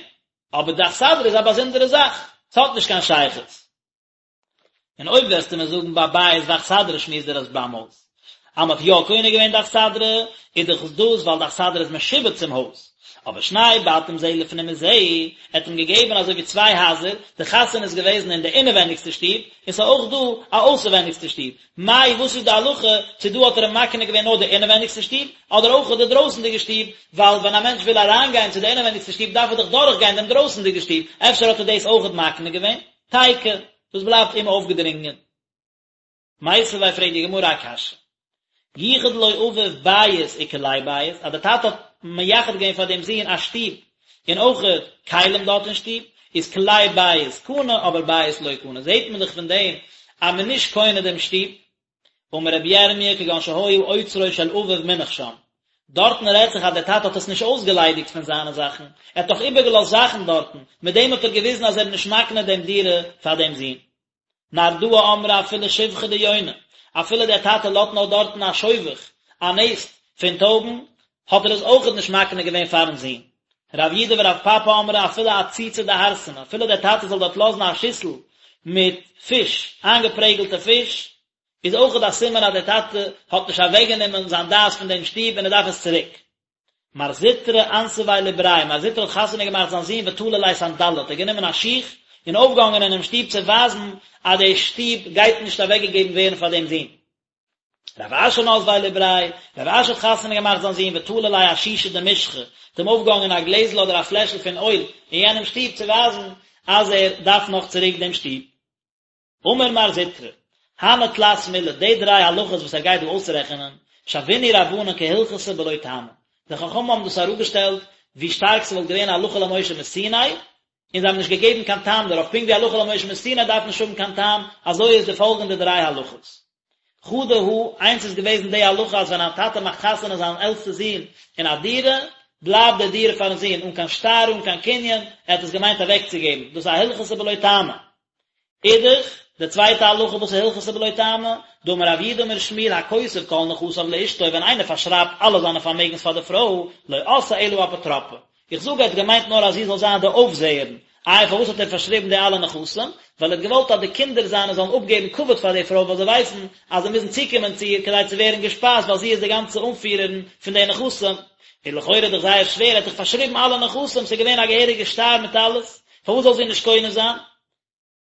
אבער די אכסדרה איז א באזונדערע זאך, ס'האט נישט קיין שייכות. און אויב וועסטו מיר זאגן ביי בית ואכסדרה שמועסט דער רשב"ם אויס אז מ'האט יא קונה געווען די אכסדרה, איז דאך דאס ווייל די אכסדרה איז משועבד צום הויז. אבער שני בתים זה לפנים מזה, ער האט אים געגעבן אזוי ווי צוויי הייזער, די חתונה איז געוועזן אין די אינעווענדיגסטע שטוב, און ס'איז אויך דא א אויסערווענדיגסטע שטוב, מאי וואס איז די הלכה, צו דא האט ער אים מקנה געווען נאר די אינעווענדיגסטע שטוב, אדער אויך די דרויסענדיגע שטוב, ווייל ווען א מענטש וויל אריינגיין צו די אינעווענדיגסטע שטוב דארף ער דאך דורכגיין דעם דרויסענדיגע שטוב, אפשר האט ער דאס אויכעט מקנה געווען? תיקו, דאס בלייבט אומאויפגעדרינגען. מיתיבי פרעגט די גמרא א קשיא. ייחד לו אביו בית וכלי בית, אז דער טאטע האט מייחד געווען פאר דעם זון א שטוב און אויכעט כלים דארט אין שטוב, איז כלי בית קנה אבער בית לא קנה, זעט מען דאך פון דעם אז מען איז נישט קונה דעם שטוב. אמר רבי ירמיה כגון שהיה אוצרו של אביו מונח שם, דארטן רעדט זיך אז דער טאטע האט עס נישט אויסגעליידיגט פון זיינע זאכן, ער האט דאך איבערגעלאזט זאכן דארטן, מיט דעם האט ער געוויזן אז ער איז נישט מקנה דעם דירה פאר דעם זון. נהרדעא אמרי אפילו שובכא דיוני, אפילו דער טאטע לאזט נאר דארטן א שובך, א נעסט, פון טויבן, האט ער עס אויכעט נישט מקנה געווען פארן זון. רב יהודה ורב פפא אמרי אפילו עציצא דהרסנא, אפילו דער טאטע זאל דארט לאזן א שיסל מיט פיש, איינגעפרעגלטע פיש, איז אויכעט א סימן אז דער טאטע האט נישט אוועקגענומען זיין דעת פון דעם שטוב און ער דארף עס צוריק. מר זוטרא אנסביה לבריה, מר זוטרא האט חתונה געמאכט זיין זון ותלי ליה סנדלא, האט ער גענומען א שיך און אויפגעהאנגען אינעם שטוב צו ווייזן אז די שטוב גייט נישט אוועקגעגעבן ווערן פאר דעם זון. רב אשי נסביה לבריה, רב אשי האט חתונה געמאכט זיין זון ותלי ליה אשישא דמשחא, האט אים אויפגעהאנגען א גלעזל אדער א פלעשל פון אויל אין יענעם שטוב צו ווייזן אז ער דארף נאך צוריק דעם שטוב. אמר מר זוטרא, הני תלת מילי, די דריי הלכות וואס ער גייט דא אויסרעכענען, שוינהו רבנן כהלכתא בלא טעמא, די חכמים האבן דאס אראפגעשטעלט ווי שטארק ס'וואלט געווען הלכה למשה מסיני, און זיי האבן נישט געגעבן קיין טעם דערויף, פונקט ווי הלכה למשה מסיני דארף נישט האבן קיין טעם, אזוי איז די פאלגענדע דריי הלכות. חדא הא, איינס איז געוועזן די הלכה אז ווען א טאטע מאכט חתונה זיין עלטסטע זון אין א דירה, בלייבט די דירה פארן זון אן קיין שטר אן קיין קנין, ער האט עס געמיינט אוועקצוגעבן, דאס איז א הלכתא בלא טעמא. אידך, די צווייטע הלכה וואס איז הלכתא בלא טעמא, דאמר רב יהודה אמר שמואל הכותב כל נכסיו לאשתו ווען איינער פארשרייבט אלע זיינע פארמעגנס פאר די פרוי, לא עשאה אלא אפוטרופא. איך זאג ער האט געמיינט נאר אז זי זאל זיין די אויפזעערין, איי פארוואס האט ער פארשריבן די אלע נכסים? ווייל ער האט געוואלט אז די קינדער זיינע זאלן אפגעבן כבוד פאר די פרוי ווייל זיי ווייסן אז זיי מוזן צוקומען צו איר כדי צו ווערן געשפייזט ווייל זי איז די גאנצע אנפירערין פון די נכסים. איז לכאורה דאך זייער שווער, ער האט דאך פארשריבן אלע נכסים, ס'איז געווען א געהעריגע שטר מיט אלעס, פארוואס זאל זי נישט קונה זיין?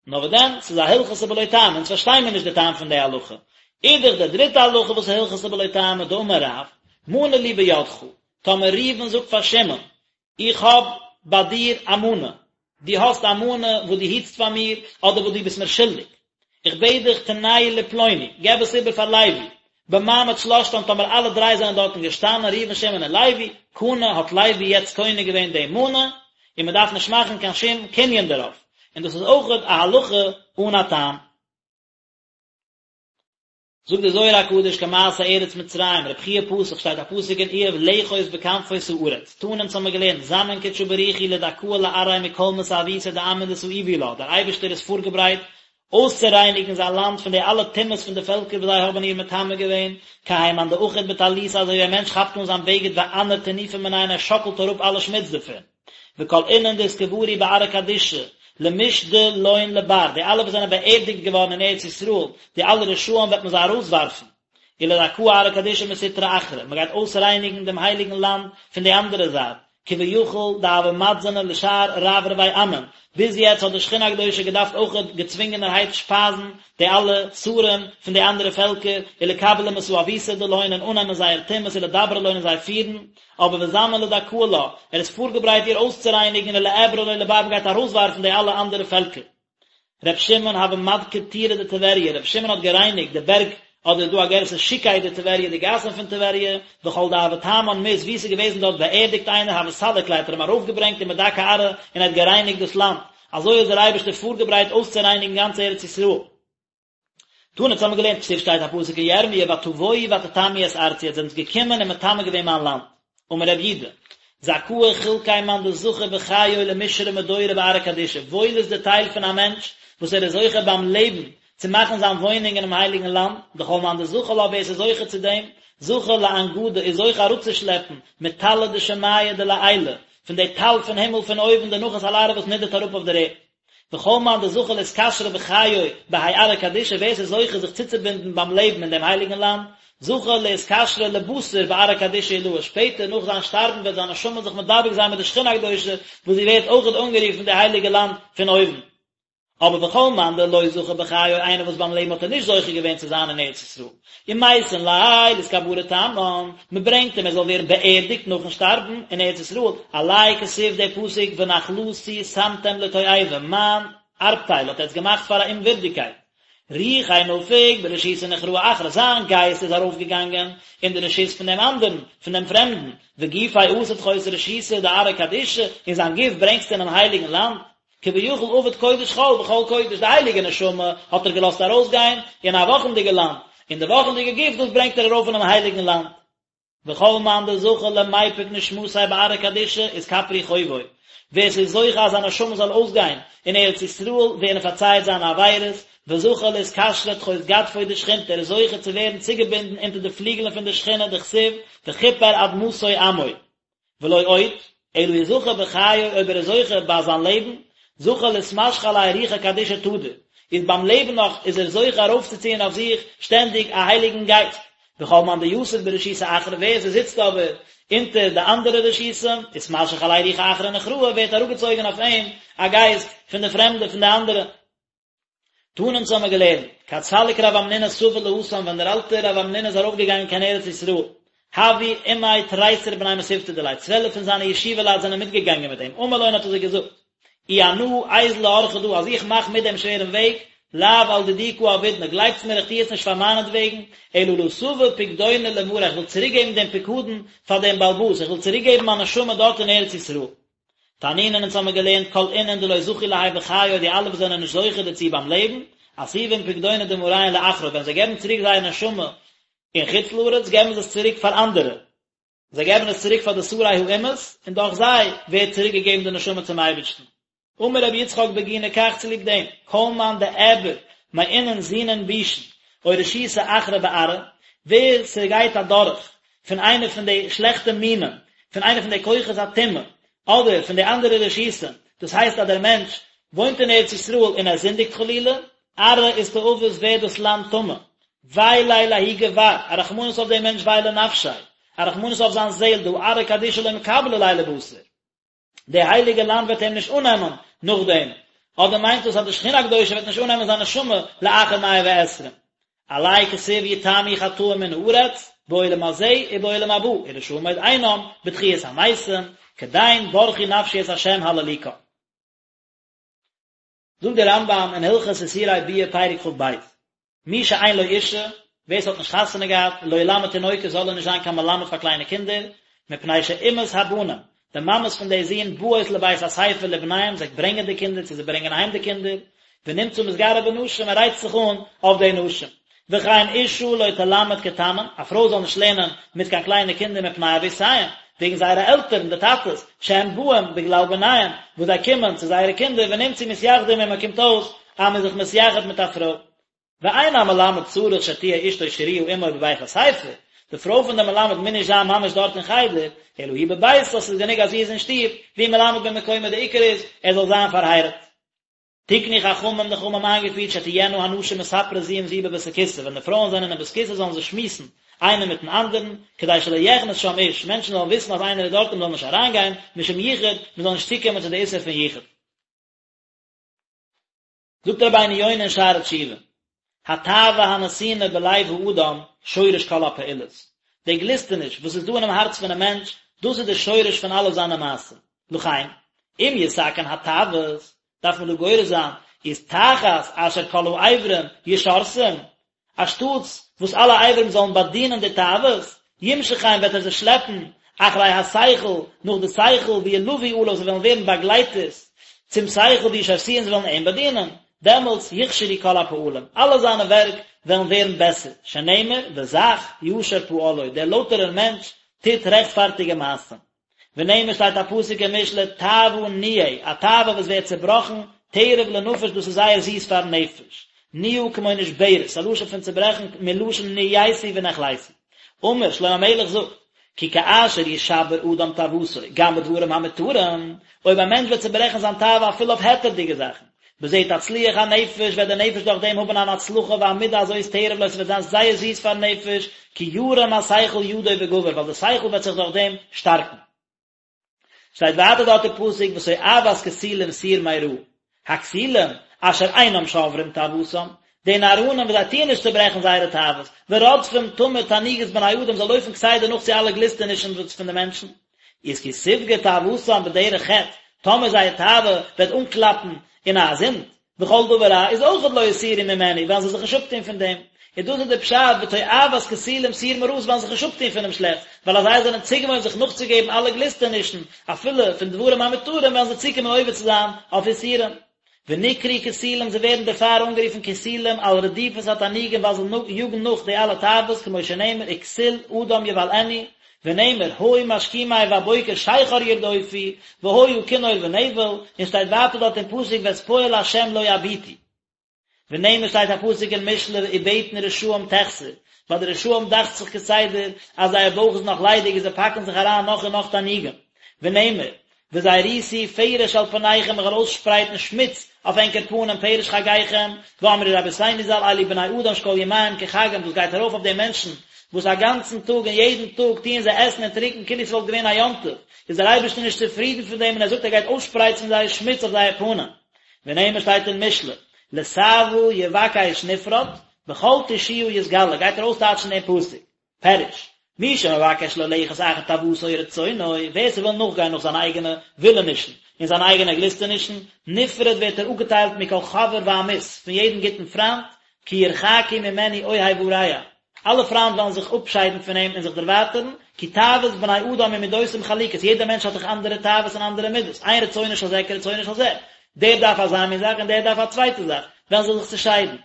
נאר וואס דען, ס'איז א הלכתא בלא טעמא, אונז פארשטיי מיר נישט די טעם פון די הלכה. אידך די דריטע הלכה וואס איז הלכתא בלא טעמא, דאמר רב, מנה לי בידך, טאמער ראובן זאגט פאר שמעון, איך האב ביי דיר א מנה, דו האסט א מנה וואס דו היטסט פאר מיר, אדער וואס דו ביסט מיר שולדיג, איך בעט דיך תנהו לפלוני, געב עס איבער פאר לוי, במעמד שלשתן טאמער אלע דריי זענען דארטן געשטאנען ראובן שמעון און לוי, קנה האט לוי יעצט קונה געווען די מנה, און מען דארף נישט מאכן קיין שום קנין דערויף, און דאס איז אויכעט א הלכה אן א טעם. זאגט דער זוהר הקדוש כמעשה ארץ מצרים, רבי חייא פתח שטייט א פסוק אין איוב לאחוז בכנפות הארץ, תנא אונז האמיר געלערנט זמין קודשא בריך הוא לדכאה לארעיה מכל מסאבותא דעמין דסאיבו לה, דער אייבערשטער איז פארגעברייט אויסצורייניגן זיין לאנד פון די אלע טומאות פון די פעלקער וואס זיי האבן איר מטמא געווען, כהאי מאן דאחיד בטליתא אזוי ווי א מענטש כאפט אן זיין בגד ואנער טינופא מיניה און ער שאקלט אראפ אלע שמוץ דערפון. וכל אינון דאתקברו בארעא קדישא, למשדא לון לבר, די אלע וואס זענען באערדיגט געווארן אין ארץ ישראל, די אלע רשעים וועט מען זיי ארויסווארפן. ולדכאה ארעא קדישא מסטרא אחרא, מען גייט אויסרייניגן דעם הייליגן לאנד פון די אנדערע זייט, כביכול דהוה מתזנא לשאר רברבי עמין, ביז יעצט האט די שכינה הקדושה געדארפט אויכעט געצווינגענערהייט שפייזן די אלע שרים פון די אנדערע פעלקער, ולקבלא מסאבותא דלהון און אננעמען זייער טומאות ולדברא לון און זיי פירן, אבער וזמין לדכאה לה, ער איז פארגעברייט איר אויסצורייניגן ולאעברא ליה לבר מען גייט ארויסווארפן די אלע אנדערע פעלקער. ר' שמעון הוה מדכר טורי דטבריא, ר' שמעון האט גערייניגט די בערג, אדער איז דא א גירסא שוקי דטבריא די גאסן פון טבריה, וכל דהוה תמן מית וואו ס'איז געוועזן דארט באערדיגט איינער הוה סליק ליה האט ער אים ארויפגעברענגט ומדכי ארעא און ער האט גערייניגט דאס לאנד, אזוי איז דער אייבערשטער פארגעברייט אויסצורייניגן גאנץ ארץ ישראל. תנא אונז האמיר געלערנט כתיב שטייט א פסוק אין ירמיה ותבואו ותטמאו את ארצי עטס זענטס געקומען און מטמא געווען מיין לאנד. אמר רב יודא, זכאה חולקיה מאן דזכי בחיוהי למשרי מדורא בארעא קדישא, וואויל איז די טייל פון א מענטש וואס ער איז זוכה ביים לעבן צו מאכן זיין וואוינונג אינעם הייליגן לאנד, דכל מאן דזכי לה ווער עס איז זוכה צו דעם, זכי לאנגדא איז זוכה אראפצושלעפן מטלא דשמיא דלעילא, פון די טל פון הימל פון אויבן דנחת על ארעא וואס נידערט אראפ אויף דער ערד. וכל מאן דזכי לאתקשרא בחיוהי בהאי ארעא קדישא ווער ס'איז זוכה זיך צוצובינדן ביים לעבן אין דעם הייליגן לאנד, זכי לאתקשרא לבתר בארעא קדישא עילאה, שפעטער נאך זיין שטארבן וועט זיין נשמה זיך מדבק זיין מיט די שכינה הקדושה וואס זי ווערט אויכעט אנגערופן די הייליגע לאנד פון אויבן. אבער וכל מאן דלא זכי בחיוהי איינער וואס ביים לעבן האט ער נישט זוכה געווען צו זיין אין ארץ ישראל, ומייתין ליה לאתקברא תמן, מען ברענגט אים ער זאל ווערן באערדיגט נאכן שטארבן אין ארץ ישראל, עליה כתיב דער פסוק ונחלתי שמתם לתועבה, מיין ארבטייל האט עטס געמאכט פאר א אומווירדיגקייט. רוחיה נפיק ברשותא נוכראה אחרא, זיין גייסט איז ארויפגעגאנגען אין די רשות פון דעם אנדערן, פון דעם פרעמדן, וגופיה אתא תחות רשותא דארעא קדישא, און זיין גוף ברענגסטו אינעם הייליגן לאנד. כביכול עבד קודש חול בחול קודש, די הייליגע נשמה האט ער געלאזט ארויסגיין אין א וואכנדיגע לאנד, און די וואכנדיגע גוף דאס ברענגט ער ארויף אינעם הייליגן לאנד. וכל מאן דזכי למיפק נשמתיה בארעא קדישא אתכפרו חובוי, ווער ס'איז זוכה אז זיין נשמה זאל אויסגיין אין ארץ ישראל ווערן פארצייעט זיינע עבירות, וזכי לאתקשרא תחות גדפוי דשכינתא, ער איז זוכה צו ווערן צוגעבינדן אונטער די פליגלען פון די שכינה דכתיב וכפר אדמתו עמו. ולא עוד, אלא אי זכה בחיוהי אויב ער איז זוכה ביי זיין לעבן, זכה לאתמשכא עליה רוחא קדישא תדיר, איז ביים לעבן נאך איז ער זוכה ארויפצוציען אויף זיך שטענדיג א הייליגן גייסט. וכל מאן דיתיב ברשותא אחרא ווער ס'זיצט אבער אונטער די אנדערע רשותים, אתמשך עליה רוחא אחרא נוכראה ווערט אראפגעצויגן אויף אים א גייסט פון די פרעמדע פון די אנדערע. תנא אונז האמיר געלערנט, כד סליק רב המנונא סבא להתם ווען דער אלטער רב המנונא איז ארויפגעגאנגען קיין ארץ ישראל, הוו עמיה תריסר בני מתיבתא דיליה, צוועלף פון זיינע ישיבה לייט זענען מיטגעגאנגען מיט אים, אמר לון האט ער זיי געזאגט, אי אנא איזיל לאורחא דא, אז איך מאך מיט דעם שווערן וועג, לאו על דידי קא עבידנא, גלייבטס מיר איך טו עס נישט פאר מיינעטוועגן, אלא לאתבא פקדונא למרא, איך וויל צוריקגעבן דעם פיקדון פאר דעם בעל הבית, איך וויל צוריקגעבן מיין נשמה דארט אין ארץ ישראל. תנינן אונז האמיר געלערנט כל אינון דלא זכו להאי בחיי די אלע וואס זענען נישט זוכה דערצו ביים לעבן, אתיבין פקדונא דמריהון לאחרא ווען זיי געבן צוריק זייער נשמה אין חוץ לארץ געבן זיי עס צוריק פאר אנדערע, זיי געבן עס צוריק פאר די שרי האומות און דורך זיי ווערט צוריק געגעבן די נשמה צום אייבערשטן. אמר רבי יצחק בגיני כך צוליב דעם, כל מאן דאעבר מאינון זינין בישין או רשותא אחרא בארעא, ווער ס'גייט אדורך פון איינע פון די שלעכטע מינים, פון איינע פון די כוחות הטומאה, אדער פון די אנדערע רשותים, דאס הייסט אז דער מענטש וואוינט אין ארץ ישראל און ער זינדיגט חלילה, ארעא אסתאבת ווערט דאס לאנד טמא, ווי ליה לההוא גבר, א רחמנות אויף דעם מענטש ווי לנפשיה, א רחמנות אויף זיין זעהל, דהא ארעא קדישא לא מקבלא ליה לבתר. די הייליגע לאנד וועט אים נישט אננעמען נאכדעם, אדער מיינט דאס אז די שכינה הקדושה וועט נישט אננעמען זיין נשמה לאחר מאה ועשרים. עליה כתיב יתמו חטאים מן הארץ, בעולם הזה ובעולם הבא, ורשעים עוד אינם, בתחיית המתים, כדין ברכי נפשי את ה' הללוקה. זאגט דער רמב"ם אין הלכות איסורי ביאה פרק כ"ב, מי שאין לו אישה, ווער ס'האט נישט חתונה געהאט, לא ילמד תינוקות זאל ער נישט זיין קיין מלמד פאר קליינע קינדער, מפני שאימהות הבנים, די מאמעס פון די זין באות לבית הספר לבניהם, זיי ברענגען די קינדער צו זיי ברענגען אהיים די קינדער, ונמצא מתגרה בנשים, ער רייצט זיך אן אויף די נשים. וכן אשה לא תלמד קטנים, א פרוי זאל נישט לערנען מיט קיין קליינע קינדער מפני אבותיהם, וועגן זייערע עלטערן, די טאטעס, שהם באים בגלל בניהם, וואס זיי קומען צו זייערע קינדער ונמצאו מתייחדים עמה קומט אויס אז מען איז זיך מתייחד מיט א פרוי. ואין המלמד צריך שתהיה אשתו שרויה עמו בבית הספר, די פרוי פון דעם מלמד מוז נישט זיין ממש דארט אין חדר, אלא היא בביתה, ס'איז גענוג אז זי איז אין שטוב, והוא מלמד במקומו, די עיקר איז ער זאל זיין פארהייראט. תקנו חכמים די חכמים האבן איינגעפירט שתהיינה הנשים מספרות זו עם זו בבית הכסא, ווען די פרויען זענען אין בית כסא זאלן זיי שמועסן איינער מיטן אנדערן, כדי שלא יכנס שם איש, מענטשן זאלן וויסן אז איינער איז דארט און מען זאל נישט אריינגיין, משום יחוד, מען זאל נישט צוקומען צו די איסור פון יחוד. זאגט רבינו יונה אין שערי תשובה, התאווה הנתונה בלב האדם שורש כל הפעולות, די גליסטעניש וואס איז דא אינעם הארץ פונעם מענטש, דאס איז די שורש פון אלע זיינע מעשים, לכן, אם יתקן התאוות, דארף מען דא גורס זיין, איז תחת אשר כל האיברים ישרתום, אנשטאטס וואס אלע איברים זאלן באדינען די תאוות, ימשכם וועט ער זיי שלעפן אחרי השכל, נאך די שכל, וילוו עליו, זיי וועלן ווערן באגלייטערס צום שכל, וישרתוהו זיי וועלן אים באדינען, דעמאלטס יכשרו כל הפעלים, אלע זיינע ווערק וועלן ווערן בעסער, שנאמר, וזך ישר פעלו, דער לויטערער מענטש טוט רעכטפארטיגע מעשים. ונאמר שטייט א פסוק אין משלי תאוה ניעה, א תאווה וואס ווערט צעבראכן, תרב לנפש דאס איז זייער זיס פארן נפש, ניעה כמו נשברת, א לשון פון צעברעכן מלשון נעיתי ונחליתי. אמר, שלמה המלך זאגט, כי כאשר ישבר אדם תאוותו גם בדברים המותרים, אויב א מענטש וועט צעברעכן זיין תאווה אפילו אויף היתר'דיגע זאכן, בזה תצליח הנפש, וועט די נפש דורך דעם האבן אן הצלחה והמידה הזאת תרב לו, ס'וועט זיין זייער זיס פארן נפש, כי ירים השכל ידו וגבר, ווייל די שכל וועט זיך דורך דעם שטארקן. שטייט ווייטער דארט אין פסוק ותועבת כסילים סור מרע, הכסילים אשר אינם שוברים תאוותם, די נאראנים וואס זיי טוען נישט צוברעכן זייערע תאוות, ורודפים תמיד תענוגות בני אדם, זיי לויפן כסדר נאך צו אלע גליסטענישן פון די מענטשן, איז כי תפגע תאוותם בדרך חטא, טאמער זייער תאווה וועט אנקלאפן אין א זינד, וכל דבר רע איז אויכעט לא יסורו ממנו, וועלן זיי זיך נישט אפטון פון דעם. און דאס איז די פשט ותועבת כסילים סור מרע, זיי וועלן זיך נישט אפטון פונעם שלעכטס, ווייל אז זיי זענען צוגעוואוינט זיך נאכצוגעבן אלע גליסטענישן, אפילו פון דברים המותרים, וועלן זיי צוקומען עובר צו זיין אויף איסורים. ונקראו כסילים זיי ווערן דערפאר אנגערופן כסילים על רדיפת התענוגים ווייל זיי יאגן נאך די אלע תאוות כמו שנאמר וכסיל אדם יבלענו ונאמר היו משכימי בבוקר שכר ירדופו והיה כינור ונבל און שטייט ווייטער דארט אין פסוק ואת פועל השם לא יביטו ונאמר שטייט א פסוק אין משלי ובטן רשעים תחסר ביי די רשעים דאכט זיך כסדר אז זייער בויך איז נאך ליידיג און זיי פאקן זיך אריין נאך און נאך תענוגים ונאמר וזריתי פרש על פניכם איך וועל אויסשפרייטן שמוץ אויף ענקער פנים פרש חגיכם, ואמרו רבותינו ז"ל אלו בני אדם שכל ימיהם כחגם דאס גייט ארויף אויף די מענטשן. וואס א גאנצן טאג און יעדן טאג טוען זיי עסן און טרינקען כאילו ס'וואלט געווען א יום טוב, איז דער אייבערשטער נישט צופרידן פון דעם און ער זאגט ער גייט אויסשפרייצן זייער שמוץ אויף זייער פנים. ונאמר שטייט אין משלי, לתאוה יבקש נפרד, בכל תושיה יתגלה, גייט ער אויסטייטשן דעם פסוק. פירוש, מי שמבקש ללכת אחר תאוותו ורצונו, ווער ס'וויל נאכגיין נאך זיינע אייגענע ווילענישן און זיינע אייגענע גליסטענישן, נפרד ווערט ער אפגעטיילט מכל חבר ועמית, פון יעדן גוטן פריינט, כי ירחקו ממנו אוהב ורע, אלע פריינט וועלן זיך אפשיידן פון אים און זיך דערווייטערן, כי תאוות בני אדם ומידותם חלוקות, יעדער מענטש האט דאך אנדערע תאוות און אנדערע מידות, אין רצונו של זה כרצונו של זה, דער דארף אזא מין זאך און דער דארף א צווייטע זאך, וועלן זיי זיך צעשיידן.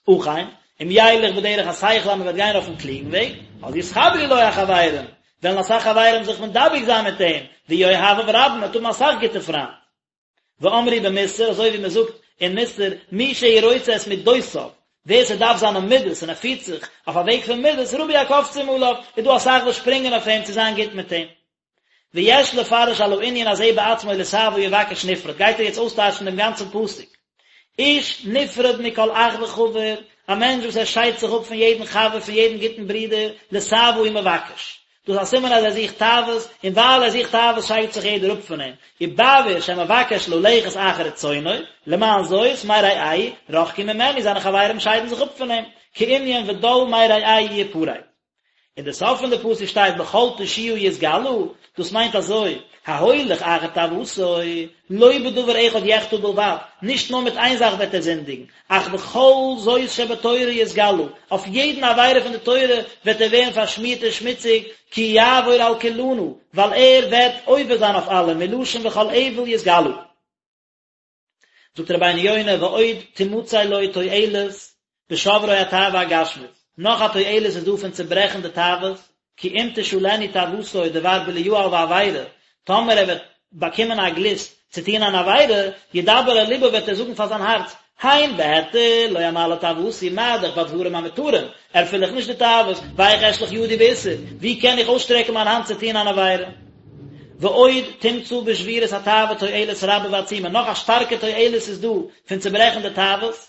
אכן, אם ילך בדרך השכל אז מען וועט גיין אויפן קלוגן וועג, אז יתחברו לו החברים, וועלן אסאך חברים זיך מדבק זיין מיט אים, ויהיו אוהביו רבים, מען וועט האבן אסאך גוטע פריינט. ואמרו במוסר, אזוי ווי מען זאגט אין מוסר, מי שהוא רוצה את מידותיו, ווער ס'דארף זיינע מידות און ער פירט זיך אויף א וועג פון מידות, רבו הקופצים עליו, איז דא אסאך וואס שפרינגען אויף אים צו זיין גוט מיט אים. ויש לפרש על הענין הזה בעצמו לתאוה יבקש נפרד, גייט ער יעצט אויסטייטשן דעם גאנצן פסוק. איש נפרד מכל אח וחבר, א מענטש וואס ער שיידט זיך אפ פון יעדן חבר, פון יעדן גוטן ברודער, לתאוה הוא מבקש. דאס איז א סימן אז ער זוכט תאוות, און ווייל ער זוכט תאוות שיידט זיך יעדער אפ פון אים. ובעבור שמבקש ללכת אחר רצונו, למען זאת, מרעהו, רחקו ממנו, זיינע חברים שיידן זיך אפ פון אים, כענין ודל מרעהו יפרד. אין די סוף פון די פסוק שטייט בכל תושיה יתגלה, דאס מיינט אזוי, ההולך אחר תאוותו, לא בדבר אחד יחטא בלבד, נישט נאר מיט איין זאך וועט ער זינדיגן, אך בכל זאת שבתורה יתגלה, אויף יעדן עבירה פון די תורה וועט ער ווערן פארשמירט און שמוציג, כי יעבור על כולנה, ווייל ער וועט עובר זיין אויף אלע, מלשון וכל עוול יתגלה. זאגט רבינו יונה ועוד תמצא לו תועלת בשברו התאווה הגשמית, נאך א תועלת איז דא פון צוברעכן די תאוות, כי אם תשאלנו תאוותו דבר בליעל ועבירה, טאמער ער וועט באקומען א גליסט צו טון אן עבירה, ידבר אל לבו וועט ער זאגן פאר זיין הארץ, הן בהיתר לא אמלא תאוותי, מה דאך בדברים המותרים, ערפיל איך נישט די תאוות, ואיך אשלח ידי באיסור, ווי קען איך אויסשטרעקן מיין האנט צו טון אן עבירה? ועוד תמצא בשבירת התאווה תועלת רבה ועצומה, נאך א שטארקע תועלת איז דא פון צוברעכן די תאוות,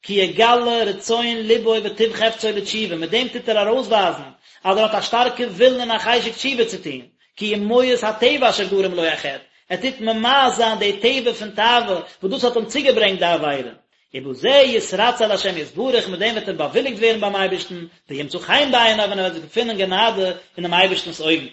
כי יגלה רצון לבו וטוב חפצו לתשובה, מיט דעם טוט ער ארויסווייזן אז ער האט א שטארקע ווילן און א חשק תשובה צו טון, כי הוא מואס הטבע אשר גרם לו החטא, ער טוט ממאס זיין די טבע פון תאווה וואס דאס האט אים צוגעברענגט די עבירה, ובזה יתרצה להשם יתברך, מיט דעם וועט ער באוויליגט ווערן ביים אייבערשטן, וימצא חן בעיניו און ער וועט געפינען גענאדע אינעם אייבערשטנ'ס אויגן.